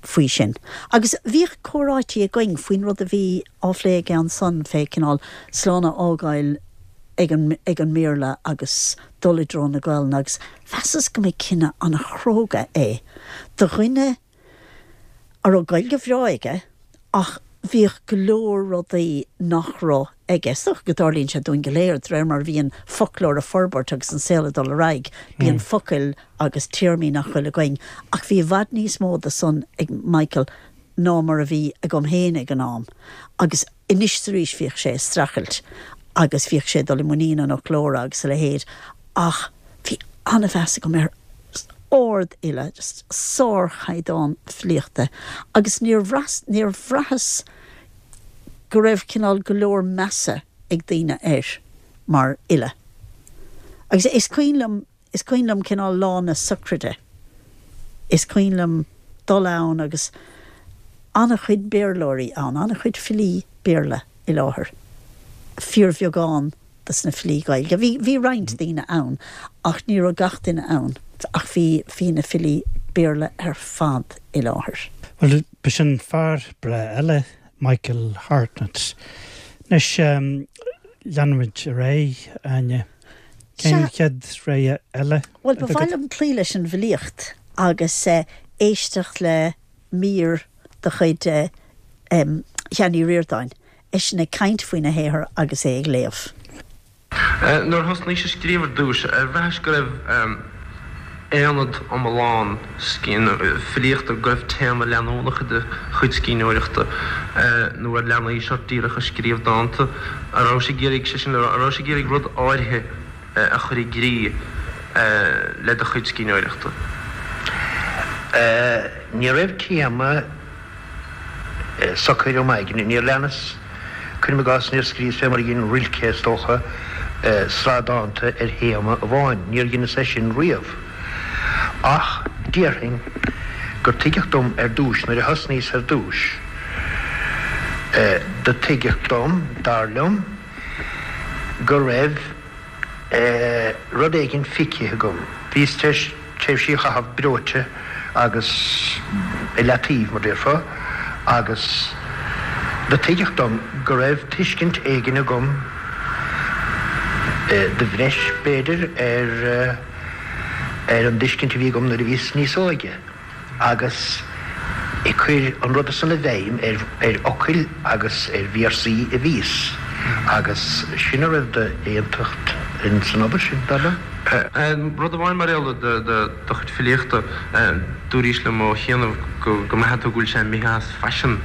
faoi sin. Agus bhíodh comhráití againn faoin rud a bhí á phlé aige ansan fé cineál slán a fhágáil ag an ag an mBéarla agus dul i dtreo na Gaelainne agus mheasas go mba cinneadh an-chróga é do dhuine a raibh Gaeilge bhreá aige ach bhíodh go leor rudaí nach raibh aige. Is dócha go dtarlaíonn sé dúinn go léir, de réir mar a bhíonn foclóir ag forbairt agus an saol ag dul ar aghaidh, bíonn focail agus téarmaí nach bhfuil againn. Ach bhí i bhfad níos mó de san ag Michael. ná mar a bhí agam féin ag an am agus anois is arís bhíodh sé ag streachailt agus bhíodh sé ag dul i muinín an fhoclóra agus a leithéid ach bhí an-mheas agam air, ard-fhile, just sárchaighdeán filíochta agus níor bhraith, níor bhraitheas go raibh cineál go leor measa ag daoine air mar fhile. Agus is cuimhin liom, is cuimhin liom cineál lá na sochraide, is cuimhin liom dul ann agus an-chuid Béarlóirí ann, an-chuid filí Béarla i láthair, fíorbheagán dos na filí Gaeilge. Bhí, bhí roinnt daoine ann ach ní raibh gach duine ann ach bhí, bhí na filí Béarla ar fad i láthair. Bhuel, b'shin fear breá eile, Michael Hartnett. Anois, leanfaimid ar aghaidh, Áine. Cén chéad rogha eile Bhuel, ba mhaith liom cloí leis an bhfilíocht agus éisteacht le mír de chuid Sheáin Uí Ríordáin, eisean ag caint faoina shaothar agus é ag léamh. Nuair a thosnaís ag scríobh ar dtús, ar bhraithis go raibh aonad iomlán filíochta, go raibh téama leanúnach i do chuid scríbhneoireachta, nó ar leanaís ort díreach ag scríobh dánta? An rabhais ag iarraidh, sé sin le rá, an rabhais ag iarraidh rud áirithe a chur i gcrích le do chuid scríbhneoireachta? Ní raibh téama socair im aigne. Níor leanas, cuirim i gcás, níor scríos fé mar a dhein Rilke, is dócha, sraith dánta ar théama amháin. Níor dheineas é sin riamh. Ach déarfainn gur tuigeadh dom ar dtúis, nuair a thosnaíos ar dtúis, do tuigeadh dom, dar liom, go raibh rud éigin feicthe agam. Bhíos tar éis tréimhsí a chaitheamh breoite agus i leataobh, mar déarfá, agus do tuigeadh dom go raibh tuiscint éigin agam, de bhreis, b'fhéidir, ar ar an dtuiscint a bhí agam nuair a bhíos níos óige. agus ag cur an ruda san i bhfeidhm ar fhocail agus ar véarsaí a bhíos, agus sin a raibh d'aontacht ins an obair sin, dar liom. Rud amháin mar gheall ar do chuid filíochta, dúraís liom ó chianaibh go mbraitheann tú go bhfuil sé imithe as faisean.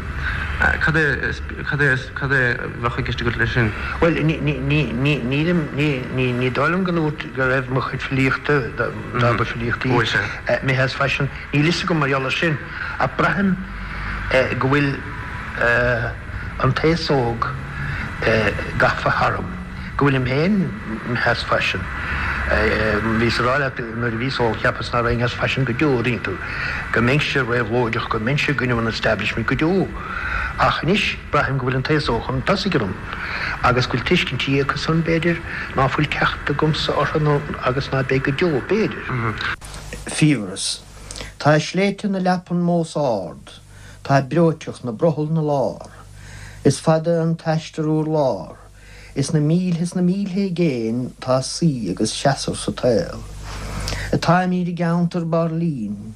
Cad é, cad é, cad é a bheadh i gceist agat leis sin? Bhuel, ní, ní, ní, ní, nílim, ní, ní, ní dóigh liom go ndúirt go raibh mo chuid filíochta, dá mba filíocht í, imithe as faisean. Níl fhios agam mar gheall air sin, ach braithim go bhfuil an t-aos óg gafa tharam, go bhfuilim féin imithe as faisean. Bhíos ag rá leat nuair a bhíos óg, cheapas ná raghainn as faisean go deo, an dtuigeann tú, go mbeinnse réabhlóideach, go mbeinnse i gcoinne an establishment go deo. Ach anois braithim go bhfuil an t-aos óg chun tosaigh orm agus go bhfuil tuiscintí acusan, b'fhéidir, ná fuil teacht agamsa orthu nó agus ná beidh go deo, b'fhéidir. Fiabhras. Tá sléibhte na leapan mós ard, tá breoiteacht na brothall 'na lár. Is fada an t-aistear urlár, is na mílthe is na mílthe i gcéin tá suí agus seasamh sa tsaol. Táimíd i gceantar Bairlín,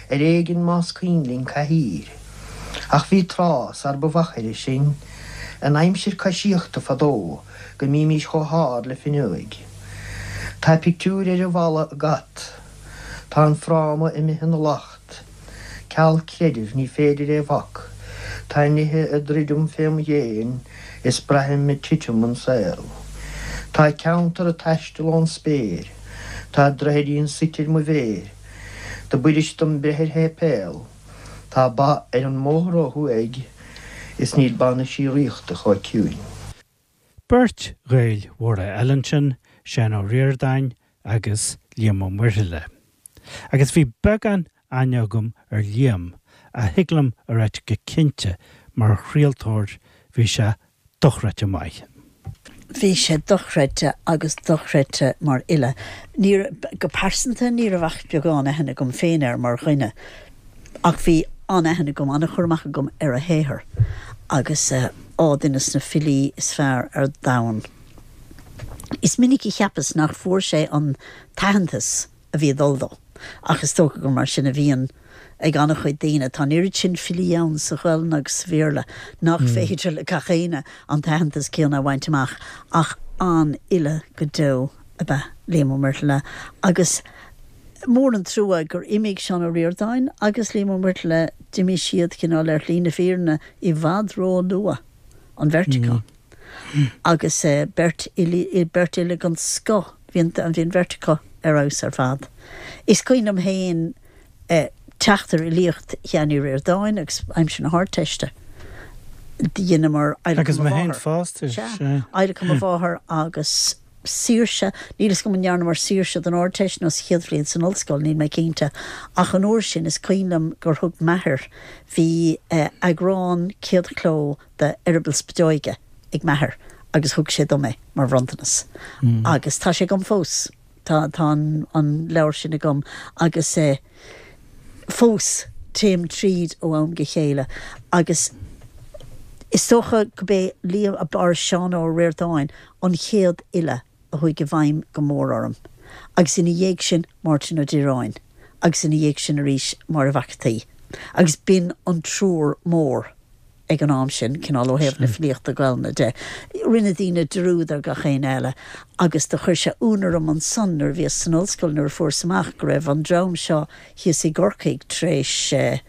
ar éigin más cuimhin linn cathaoir. Ach bhí tráth sar ba mhachaire sinn, in aimsir coisíochta fadó, go mbímís chomh hard le finneoig. Tá pictiúir ar an bhfalla i gcat. Tá an fráma imithe ina lacht. Ceal creidimh, ní féidir é bhac. Tá nithe ag druidim fém dhéin is braithim ag titim an saol. Tá ceantar ag taisteal ón spéir. Tá droichidín suite ar mo mhéir. Do b'fhuirist dom breith ar shéipéal. Tá ba ar an mbóthar ó thuaidh is níl bainisí ríochta chomh ciúin. Beirt Ghaeil mhóra eile ansin, Seán Ó Ríordáin agus Liam Ó Muirthile. Agus bhí beagán aithne agam ar Liam, ach thig liom a ráit go cinnte, mar chraoltóir, bhí sé dochreidte maith. Bhí sé dochreidte agus dochreidte mar fhile. Ní, go pearsanta, ní raibh ach beagán aithne agam féin air mar dhuine. Ach bhí an-aithne agam, an-chur amach agam ar a shaothar agus á, duine de na filí is fearr ar domhan. Is minic a cheapas nach bhfuair sé an t-aitheantas a bhí ag dul dó, ach is dócha gur mar sin a bhíonn ag an-chuid daoine. Tá an oiread sin filí ann sa Ghaelainn agus sa Bhéarla nach féidir le gach éinne an t-aitheantas céanna a bhaint amach, ach an-fhile go deo ab ea Liam Ó Muirthile agus. Mór an trua gur imigh Seán Ó Ríordáin agus Liam Ó Muirthile, d'imigh siad cineál ar shlí na fírinne i bhfad ró-luath, an bheirt acu. Agus beirt beirt fhile den scoth, bhí an bhí an bheirt acu ar fheabhas ar fad. Is cuimhin liom féin teacht ar fhilíocht Sheáin Uí Ríordáin agus aimsir na hArdteiste. Dheineamar Agus mé féin fosta, sea. Adhlacadh mo mháthar agus saoirse, níl fhios agam an ndearnamar saoirse don Ardteist nó sa chéad bhliain san ollscoil, níl mé cinnte, ach an uair sin is cuimhin liom gur thug m'athair, bhí eagrán céadchló de Eireaball Spideoige ag m'athair agus thug sé dom é mar bhronntanas agus tá sé agam fós, tá tá an an leabhar sin agam agus eh fós téim tríd ó am go chéile agus is dócha go b'é Liam, or Seán Ó Ríordáin an chéad fhile a chuaigh i bhfeidhm go mór orm, agus ina dhiaidh sin Máirtín Ó Direáin, agus ina dhiaidh sin arís Máire Mhac an tSaoi. Agus b'in an triúr mór ag an am sin, cineál ó thaobh na filíochta Gaelainne de. Rinne daoine dearúd ar gach éinne eile, agus do chuir sé ionadh orm ansan nuair a bhíos san ollscoil nuair a fuaireas amach go raibh an dream seo thíos i gCorcaigh tar éis,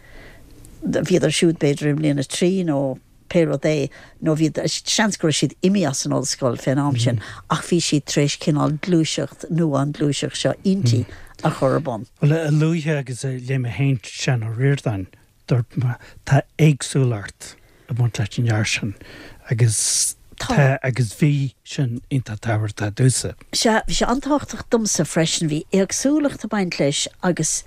bhíodar siúd b'fhéidir i mbliain a 3 nó pé rud é, nó bhí, seans go raibh siad imithe as an ollscoil fén am sin, ach bhí siad tar éis cineál gluaiseacht nua, an ghluaiseacht seo innti, a chur ar bun. Bhuel, a luaithe agus a léigh mé féin Seán Ó Ríordáin, dúirt mé, tá éagsúlacht ag baint leis an fhear sin agus tá agus bhí sin iontach tábhachtach domhsa. Sea, bhí sé an-tábhachtach domsa freisin, bhí éagsúlacht ag baint leis agus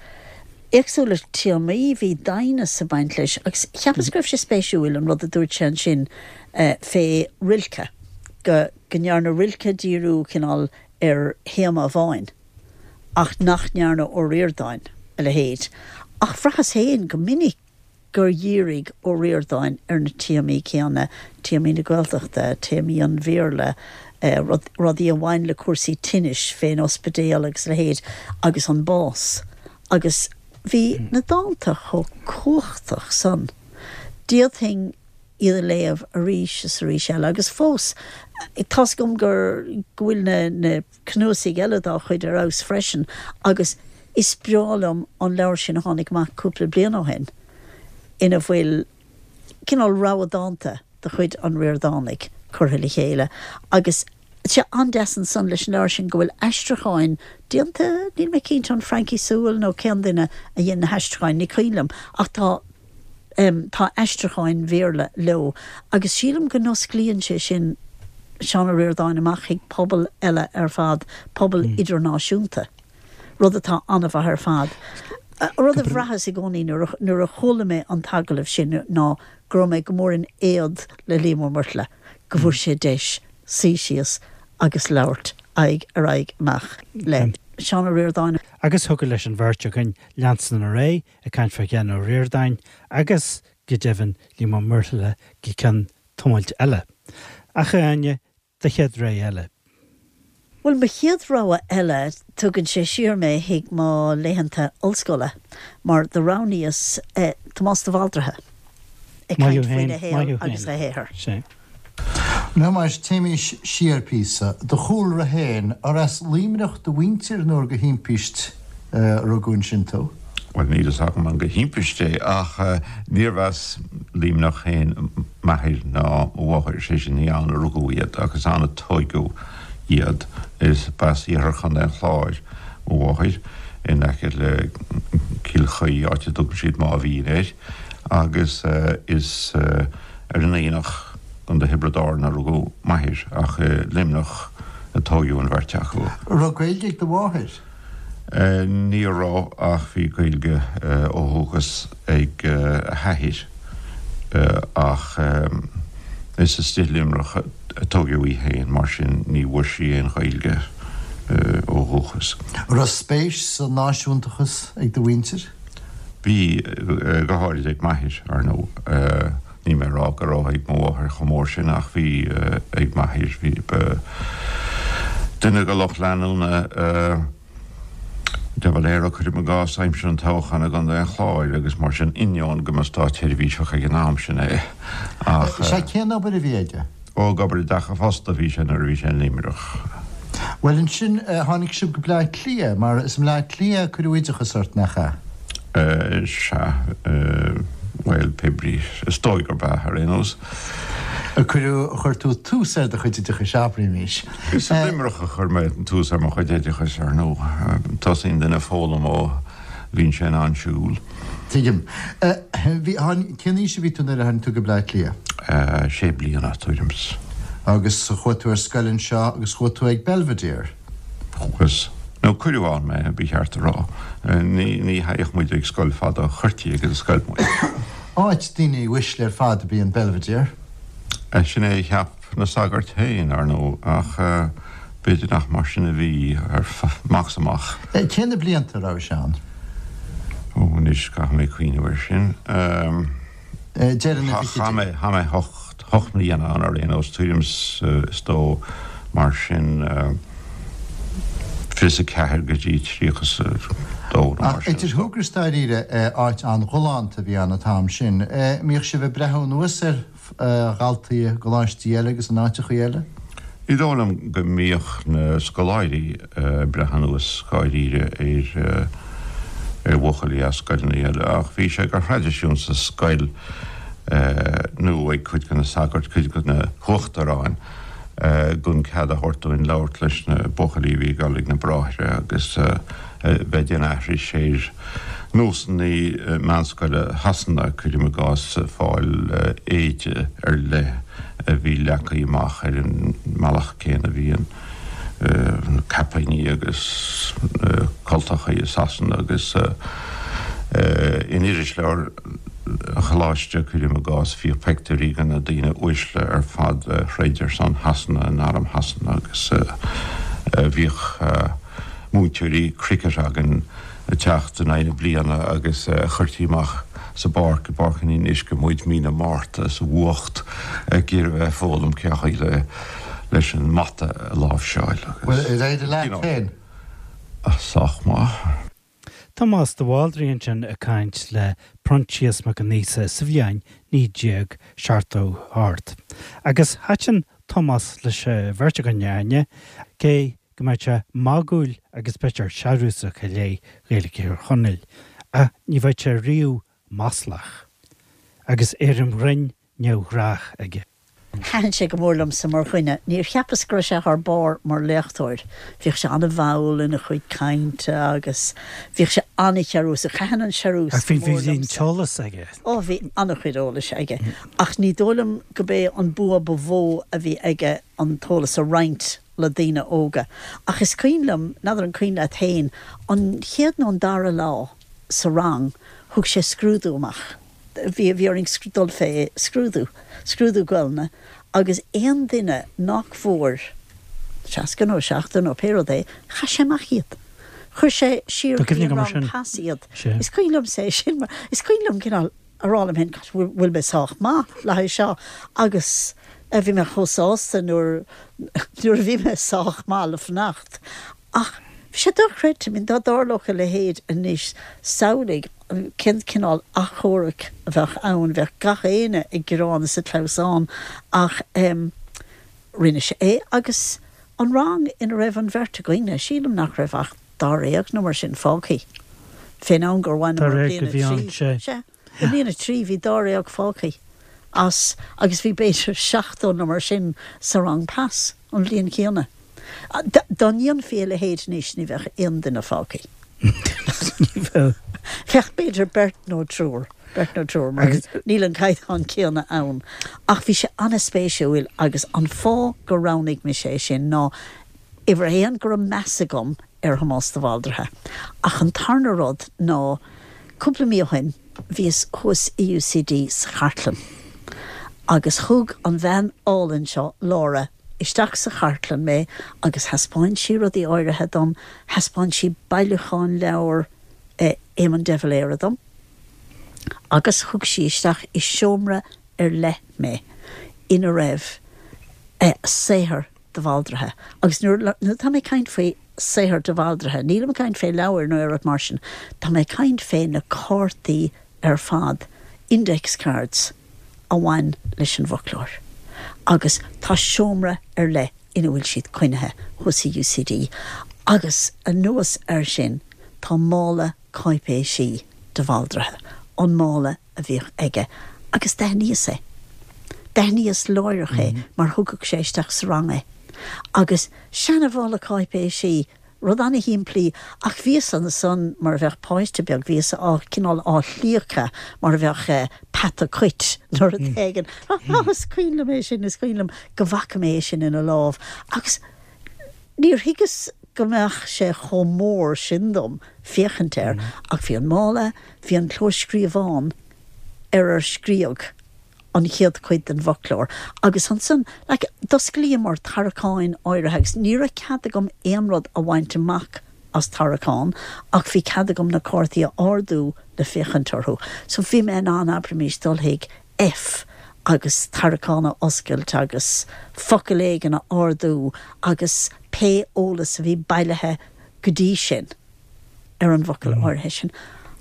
éagsúlacht téamaí, bhí doimhneas ag baint leis agus cheapas go raibh sé spéisiúil an rud a dúirt sé ansin fé Rilke, go go ndearna Rilke díriú cineál ar théama amháin ach nach ndearna Ó Ríordáin a leithéid. Ach bhraitheas féin go minic gur dhírigh Ó Ríordáin ar na téamaí céanna, téamaí na Gaeltachta, téamaí an Bhéarla, rudaí a bhain le cúrsaí tinnis fén ospidéal agus a leithéid, agus an bás. Agus bhí na dánta chomh cumhachtach san. D'fhéadfainn iad a léamh arís is arís eile. Agus fós, tá's agam gur, go bhfuil na, na. cnuasaigh eile dá chuid ar fheabhas freisin agus is breá liom an leabhar sin a tháinig amach cúpla bliain ó shin ina bhfuil cineál rogha dánta de chuid an Ríordánaigh curtha le chéile agus tá sé an-deas ansan leis an leabhar sin go bhfuil aistriúcháin déanta, níl mé cinnte an Francie Sewell nó cén duine a dhein na haistriúcháin, ní cuimhin liom ach tá tá aistriúcháin Bhéarla leo agus sílim go n-osclaíonn sé sin Seán Ó Ríordáin amach chuig pobal eile ar fad, pobal idirnáisiúnta, rud atá an-mhaith ar fad. Rud a bhraitheas i gcónaí nuair a chuala mé an t-agallamh sin ná go raibh mé go mór in éad le Liam Ó Muirthile go bhfuair sé deis suí síos agus labhairt aghaidh ar aghaidh amach le Seán Ó Ríordáin. Agus thiocfadh leis an bheirt againn leanstan ar aghaidh ag caint fá Sheán Ó Ríordáin agus, go deimhin, Liam Ó Muirthile go ceann tamaill eile. Ach, a Áine, do chéad rogha eile. Bhuel, mo chéad rogha eile, tugann sé siar mé chuig mo laethanta ollscoile, mar do roghnaíos Tomás de Bhaldraithe ag caint faoina shaol agus a shaothar. Now mar téimís siar píosa. Do chúlra féin, ar as Luimneach do mhuintir nó ar de thimpist a rugadh ansin tú? Bhuel, níl fhios agam an de thimpist é, ach níorbh as Luimneach féin m'athair ná mo mháthair, sé sin, ní ann a rugadh iad ach is ann a tóigeadh iad. Is b'as iarthar Chontae an Chláir mo mháthair, in aice le Cill Chaoi, áit a dtugann siad Máimh Mhín air, agus is. Ar an Aonach, Contae Thiobraid Árann a rugadh m'athair ach i Luimneach a tóigeadh an bheirt acu. An raibh Gaeilge ag do mháthair? Ní raibh ach bhí Gaeilge ó dhúchas ag a hathair ach is istigh i Luimneach a tóigeadh í féin mar sin ní bhfuair sí aon Ghaeilge ó dhúchas. An raibh spéis sa náisiúntachas ag do mhuintir? Bhí, go háirid ag m'athair, ar ndóigh. Níl mé ag rá go raibh ag mo mháthair chomh mór sin ach bhí ag m'athair. Bhí, ba duine de lucht leanúna de Valera, cuirim i gcás, aimsir an toghcháin i gContae an Chláir agus mar sin, ainneoin go mba státsheirbhíseach ag an am sin é. Ach. Sea, cén obair a bhí aige? Ó, ag obair i dteach an phosta a bhí sé nuair a bhí sé in Luimneach. Bhuel ansin, tháinig sibh go Bleá Cliath, mar is i mBleá Cliath a cuireadh oideachas ort, nach ea? Sea, bhuel, pé brí, is dóigh gurb ea, ar aon nós. A cuireadh, chuir tú tús ar do chuid oideachais, abraímis. Is i Luimneach a chuir mé tús ar mo chuid oideachais, ar ndóigh. Tosaíonn duine ag foghlaim ó bhíonn sé in ann siúl. Tuigim. Bhí, tháinig, cén aois a bhí tú nuair a tháinig tú go Bleá Cliath? Sé bliana, tuairim 's. Agus chuaigh tú ar scoil anseo agus chuaigh tú ag Belvedere? Chuas. Nó cuireadh ann mé, ba cheart a rá. Ní, ní théadh muid ag scoil fada, chuirtí ag an scoil muid. Áit daoine uaisle ar fad ab í an Belvedere. Sin é a cheap na sagairt féin, ar ndóigh, ach b'fhéidir nach mar sin a bhí, amach 's amach. Cé na blianta a raibh sé ann? Ó, anois, caithfidh mé cuimhneamh air sin. Deireadh na bhfichidí. Chaith mé, chaith mé hocht mbliana ann ar aon nós, tuairim is dó mar sin, 24 go dtí 32 nó mar sin. Ach idir shúgradh is dáiríre, áit an-ghalánta a bhí ann an t-am sin. Mbíodh sibh ag breathnú anuas ar dhaltaí i gcoláistí eile agus in áiteachaí eile? Ní dóigh liom go mbíodh na scoláirí ag breith anuas dháiríre ar ar bhuachaillí as scoileanna eile ach bhí sé de thraidisiún sa scoil nó ag cuid de na sagairt, cuid de na huachtaráin gan cead a thabhairt dúinn labhairt leis na buachaillí a bhí ag dul ag na bráithre agus bheith ag déanamh aithris ar nósanna meánscoile Shasana, cuirim i gcás, fáil éide ar leith a bhí leagtha amach ar an mbealach céanna a bhíonn na caipíní agus na cultachaí i Sasana agus in irisleabhar an choláiste, cuirim i gcás, bhíodh peictiúirí de na daoine uaisle ar fad a throid ar son Shasana in arm Shasana agus bhíodh múinteoirí cricket againn ag teacht in aghaidh na bliana agus chuirtí amach sa bpáirc, i bPáirc an Fhionnuisce muid mí na Márta sa bhfuacht ag iarraidh bheith ag foghlaim cén chaoi le leis an mbata a láimhseáil agus. Bhuel, ar éirigh leat féin? Sách maith. Tomás de Bhaldraithe ansin ag caint le Proinsias Mac Con Aosa sa bhliain 1978. Agus thaitin Tomás leis an bheirt againn, a Áine, cé go mbeadh sé magúil agus b'fhéidir searúsach i leith Ghaeilge Thír Chonaill, ach ní bheadh sé riamh maslach. Agus éirim ghrinn neamhghnách aige. Thaitin sé go mór liomsa mar dhuine. Níor cheapas go raibh sé thar barr mar léachtóir. Bhíodh sé an-mhall ina chuid cainte agus bhíodh sé an-shearúsach. Thaitin an searús Ach bhí go mór bhí an liomsa. t-eolas aige. Ó, bhí an-chuid eolais aige. Ach ní dóigh liom go b'é an bua ba mhó a bhí aige an t-eolas a roinnt le daoine óga. Ach is cuimhin liom, n'fheadar an cuimhin leat féin, an chéad nó an dara lá sa rang, thug sé scrúdú amach. Bhí, bhí orainn dul fé scrúdú, scrúdú Gaelainne, agus aon duine nach bhfuair 60 nó 70 nó pé rud é, chaith sé amach iad. Chuir sé siar Tá go dtí cuimhne an agam ar rang sin. pas iad. Sea. Is cuimhin liomsa é sin mar, is cuimhin liom cineál a rá liom féin, gosh, bhfuil, bhfuil mé sách maith le haghaidh seo agus eh bhí mé chomh sásta nuair, nuair a bhí mé sách maith le fanacht. Ach bhí sé dochreidte, I mean dá dtarlódh a leithéid anois, samhlaigh cén cineál achomharc a bheadh ann, bheadh gach éinne ag gearán is ag clamhsán ach em rinne sé é agus an rang ina raibh an bheirt againne, sílim nach raibh ach dáréag nó mar sin fágthaí fén am gur bhaineamar Dáréag bliain a bhí ann, 3. sea. Sea. I mbliain a 3 bhí dáréag fágthaí as agus bhí b'fhéidir 70 nó mar sin sa rang pas an bhliain chéanna. Dá ndéanfaí a leithéid anois ní bheadh aon duine fágthaí. Ní bheadh. Bheadh b'fhéidir beirt nó triúr, beirt nó triúr mar níl an caighdeán céanna ann. Ach bhí sé an-spéisiúil agus an fáth gur roghnaigh mise é sin ná uimhir a haon go raibh meas agam ar Thomás de Bhaldraithe. Ach an tarna rud ná, cúpla mí ó shin, bhíos thuas i UCD sa chartlann agus thug an bhean álainn seo, Laura, isteach sa chartlann mé agus thaispeáin sí rudaí áirithe dom, thaispeáin sí bailiúchán leabhar Éamon de Valera dom agus thug sí isteach i seomra ar leith mé ina raibh saothar de Bhaldraithe. Agus nuair atá mé ag caint faoi saothar de Bhaldraithe, nílim ag caint fé leabhair nó aon rud mar sin, tá mé ag caint fé na cártaí ar fad, index cards, a bhain leis an bhfoclóir. Agus tá seomra ar leith. ina bhfuil siad coinnithe thuas i UCD. Agus anuas air sin tá mála cáipéisí de Bhaldraithe, an mála a bhíodh aige, agus d'aithníos é. D'aithníos láithreach é mar thugadh sé isteach sa rang é. Agus seana-mhála cáipéisí, rud ana-shimplí, ach bhíos ansan mar a bheadh páiste beag, bhíos á, cineál á shlíocadh mar a bheadh peata cait nó rud éigin. Á, is cuimhin liom é sin, is cuimhin liom go bhfaca mé é sin ina lámh. Agus níor thuigeas go mbeadh sé chomh mór sin dom féachaint air, ach bhí an mála, bhí an clóscríobhán ar ar scríodh an chéad chuid den bhfoclóir agus ansan, like, d'osclaíomar tarraiceáin áirithe agus ní raibh cead agam aon rud a bhaint amach as tarraiceán ach bhí cead agam na cártaí a ardú le féachaint orthu. So bhí mé in ann, abraimis, dul chuig F agus tarraiceán a oscailt agus focal éigin a ardú agus pé eolas a bhí bailithe go dtí sin. ar an bhfocal áirithe sin,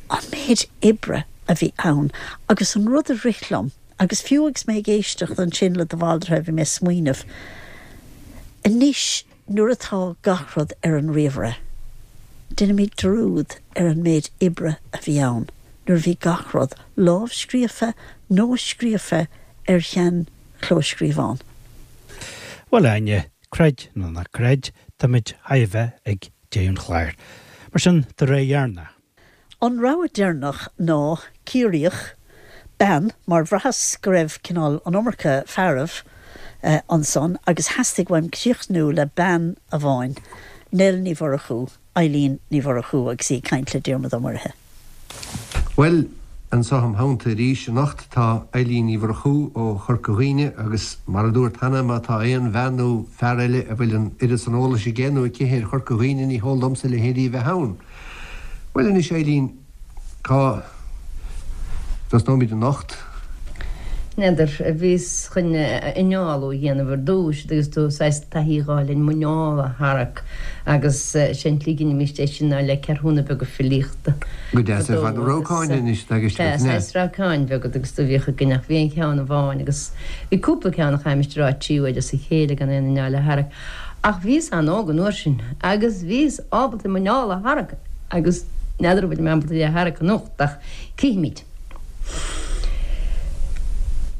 an méid oibre a bhí ann agus an rud a rith liom, agus fiú agus mé ag éisteacht ansin le de Bhaldraithe bhí mé ag smaoineamh, anois nuair atá gach rud ar an ríomhaire, déanaimid dearúd ar an méid oibre a bhí ann nuair a bhí gach rud lámhscríofa nó scríofa ar shean-chlóscríobhán. Bhuel, a Áine, creid nó ná creid, táimid chóir a bheith ag deireadh an chláir. Mar sin, do rogha dheireanach. An rogha deireanach ná Ciarraíoch, bean, mar bhraitheas go raibh cineál an iomarca fearaibh ansan agus theastaigh uaim críochnú le bean amháin, Nell Ní Mhurchú, Eilín Ní Mhurchú agus í ag caint le Diarmuid Ó Muirithe. Bhuel, anso im theannta arís anocht tá Eilín Ní Mhurchú ó Chorca Dhuibhne agus mar a dúrt cheana má tá aon bhean nó fear eile a bhfuil an oiread san eolais aige nó aici ar Chorca Dhuibhne ní heol domsa a leithéidí a bheith ann. Bhuel anois Eilín, cá dtosnóimid anocht? N'fheadar, bhíos chun innealú a dhéanamh ar dtúis agus tú saghas taithí a dh'fháil ar an muineál a tharrac agus sé an tslí a dheinimíst é sin ná le ceathrúna beaga filíochta. Go deas ar fad. Rabhcáin anois atá i gceist agat, Sea, saghas rabhcáin bheaga agus do bhíodh againn ach bhí an ceann amháin agus bhí cúpla ceann a chaithimist a rá trí huaire as a chéile gan aon inneall a tharrac ach bhíos an-óg an uair sin agus bhíos ábalta an muineál a tharrac agus n'fheadar an bhfuilim ábalta é a tharrac anocht ach cífimid.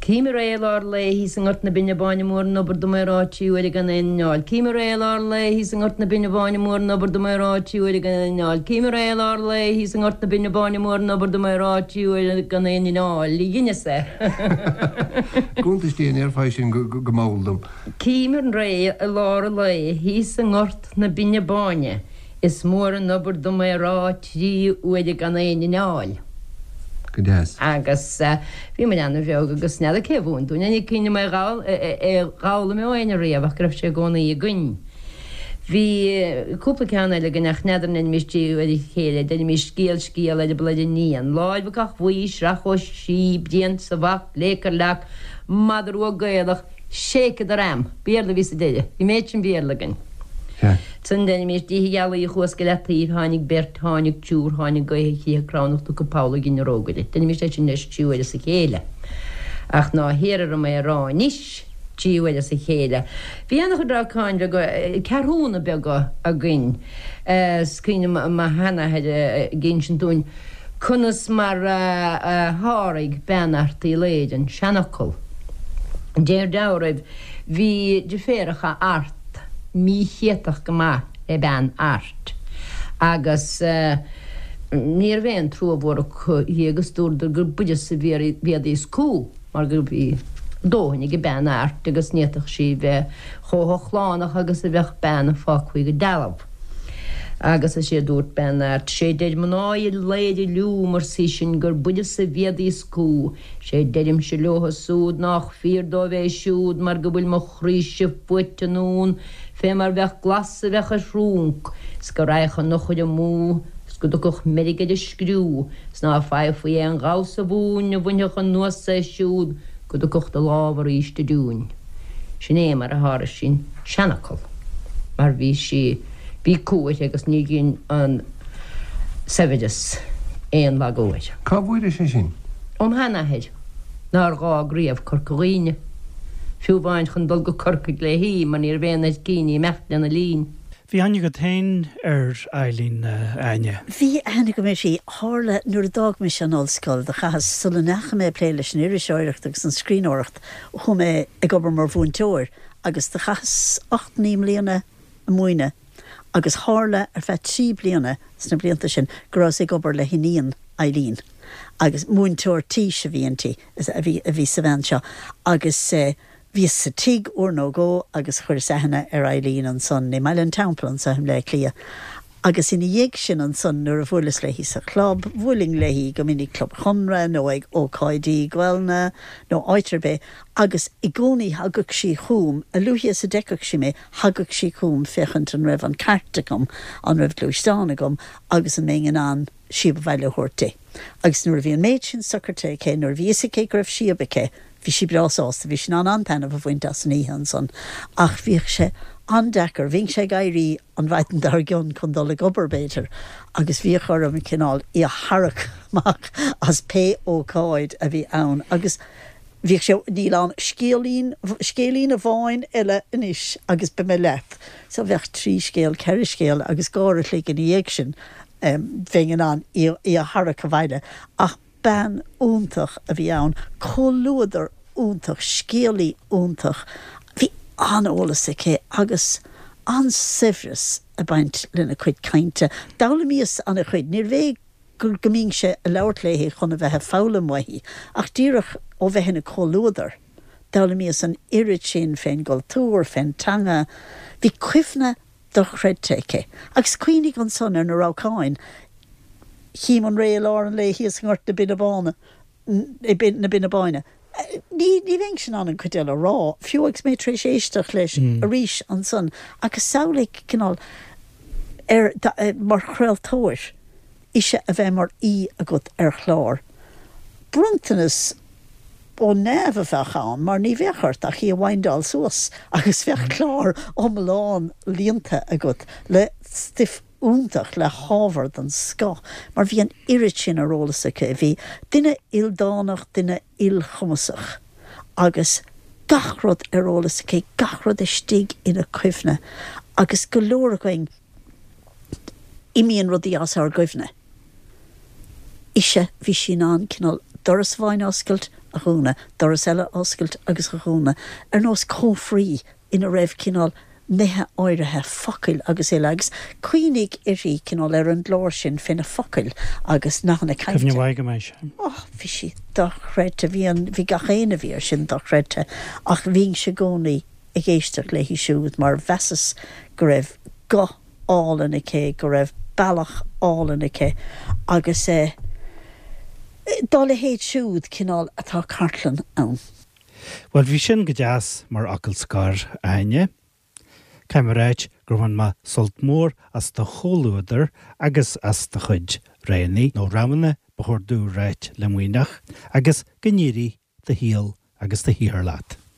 Cím ar é i lár lae thíos i nGort na Binne Báine Mór an obair dom é rá trí huaire gan aon inneall. Cím ar é i lár lae thíos i nGort na Binne Báine Mór an obair dom é rá trí huaire gan aon inneall. Cím ar é i lár lae thíos i nGort na Binne Báine Mór an obair dom é rá trí huaire gan aon inneall. Dheineas é. Cuntas Dé an ndéarfá é sin go mall dom. Cím ar é i lár an lae thíos i nGort na Binne Báine. Is mór an obair dom é rá trí huaire gan aon inneall. Go deas. Agus bhí muid ana-bheag agus n'fheadar cé a mhúin dúinn é, ní cuimhin liom é a dh'fhoghlaim ó éinne riamh ach go raibh sé i gcónaí againn. Bhí cúpla ceann eile againn ach n'fheadar an ndeinimís trí huaire a chéile, deinimís scéal scéal eireaball ar iníon, láimh ag Cath Bhuí, sraith ó sí, Brian sa bhac, léic ar leac, madra rua Gaelach, Shake the ram! Béarla a bhí sa deireadh. Bhí méid sin Béarla againn. Ansan deinimís Oíche Ghealaí chuas go Leataoibh, tháinig beirt, tháinig triúr, tháinig gaoth a chriathar cramhnach tugtha poll i gcinn an rógaire. Deinimís é sin leis trí huaire as a chéile. Ach ná hiarr orm é a rá anois trí huaire as a chéile. Bhí ana-chuid rabhcáin bheaga, ceathrúna beaga againn. Is cuimhin liom mo sheanathair ag insint dúinn Conas mar a sháraigh bean Airt Uí Laoghaire an seanfhocal? Deir dealraimh, bhí deirféaracha Art míchéatach go maith le bean Airt agus ní raibh aon trua mhór acu dhi agus dúradar gur b'uireasa a bhíodís cú mar go bhí dóthain ag bean Airt agus ní fhéadfadh sí bheith chomh hochlánach agus a bheadh bean a fágfaí go dealbh. Agus is é a dúirt bean Airt, 'Sé deir mná Uí Laoghaire liúm, arsa í sin, gur b'uireasa a bhíodís cú. 'Sé deirimse leotha súd nách fíor dóibh é siúd mar go bhfuil mo chroíse fuaite anonn fé mar bheadh glas a bheadh ar thrúnc 's go raghadh an eochair amú 's go dtiocfadh meirg ar an scriú 's ná faighfí aon ghamhsa mhúin a bhainfeadh anuas é siúd go dtiocfadh de lámh arís i dtiúin. Sin é mar a sháraigh sí an seanfhocal, mar bhí sí, bhí cumha uirthi agus ní dhein an saibhreas aon lagú air. Cá bhfuairis é sin? Óm sheanathair, nár dh'fhág riamh Corca Dhuibhne. Fiú amháin chun dul go Corcaigh léi mar ní raibh aon áit aici imeacht lena linn. Bhí aithne agat féin ar Eileen, a Áine? Bhí aithne agam uirthi. Tharla, nuair a d'fhág mise an ollscoil, do chaitheas, sula ndeachaigh mé ag plé leis an iriseoireacht agus an scríbhneoireacht, chuaigh mé ag obair mar mhúinteoir agus do chaitheas 8, 9 mbliana ag múineadh agus tharla ar feadh 3 bliana sna blianta sin go rabhas ag obair le hiníon Eileen agus múinteoir tís a bhí inti. a bhí sa bhean seo agus bhíos sa tigh uair nó dhó agus chuireas aithne ar Eileen ansan i mBaile an Teampaill anso i mBleá Cliath agus ina dhiaidh sin ansan nuair a bhuaileas léi sa chlub, bhuailinn léi go minic Club Chonradh nó ag ócáidí Gaelainne nó áit ar bith agus i gcónaí thagadh sí chugam, a luaithe is a d'fheicfeadh sí mé, thagadh sí chugam féachaint an raibh an cairt agam, an raibh gluaisteán agam agus an mbeinn in ann síob abhaile a thabhairt di. Agus nuair a bhí an méid sin socraithe aici, nuair a bhí fhios aici go raibh síob aici, bhí sí breá sásta, bhí sí in ann an-taitneamh a bhaint as an oíche ansan. Ach bhíodh sé an-deacair, bhínnse ag éirí an mhaidin dár gcionn chun dul ag obair, b'fhéidir, agus bhíodh orm cineál í a tharrac amach as pé ócáid a bhí ann agus bhíodh sé, níl ann scéilín, scéilín amháin eile anois agus beidh mé leat. So bheadh trí scéal, ceithre scéal agus uair a chloig ina dhiaidh sin. bheinn in ann í a tharrac abhaile. Ach bean iontach a bhí ann, comhluadar iontach, scéalaí iontach. Bhí an-eolas aici agus an-saibhreas ag baint lena cuid cainte. D'fhoghlaimíos an-chuid. Níorbh é go mbínnse ag labhairt léi chun a bheith ag foghlaim uaithi, ach díreach ó bheith ina comhluadar. D'fhoghlaimíos an oiread sin fén gcultúr, fén teanga. Bhí cuimhne dochreidte aici. Agus cuimhnigh ansan ar na rabhcáin. Chím an ré i lár an lae thíos i nGort na Binne Báine, na Binne Báine. Ní, ní bheinnse in ann an chuid eile a rá, fiú agus mé tar éis éisteacht leis arís ansan. Agus samhlaigh cineál ar, mar chraoltóir, ise a bheith mar aoi agat ar chlár. Bronntanas ó neamh a bheadh ann mar ní bheadh ort ach í a windáil suas agus bheadh clár iomlán líonta agat le stuif iontach, le hábhar den scoth mar bhí an oiread sin ar eolas aici. Bhí duine ildánach, duine ilchumasach agus gach rud ar eolas aici, gach rud istigh ina cuimhne agus go leor againn, imíonn rudaí as ár gcuimhne. Ise, bhí sí in ann cineál doras amháin a oscailt, a dhúnadh, doras eile a oscailt agus a dhúnadh, ar nós cófraí ina raibh cineál nithe áirithe, focail agus uile, agus cuimhnigh uirthi cineál ar an gclár sin fé na focail agus nathanna cainte. Cuimhne mhaith agam air sin. Oh, bhí sí dochreidte, bhí an, bhí gach éinne a bhí air sin dochreidte, ach bhínnse i gcónaí ag éisteacht léi siúd mar mheasas go raibh guth álainn aici, go raibh bealach álainn aici agus dá leithéid siúd cineál atá cartlann ann. Bhuel, bhí sin go deas mar fhocal scoir, a Áine. Caithfidh mé a ráit gur bhain mé sult mór as do chomhluadar agus as do chuid roghanna, nó roghanna ba chóir domh a ráit le muineach, agus go n-éirí do shaol agus do shaothar leat.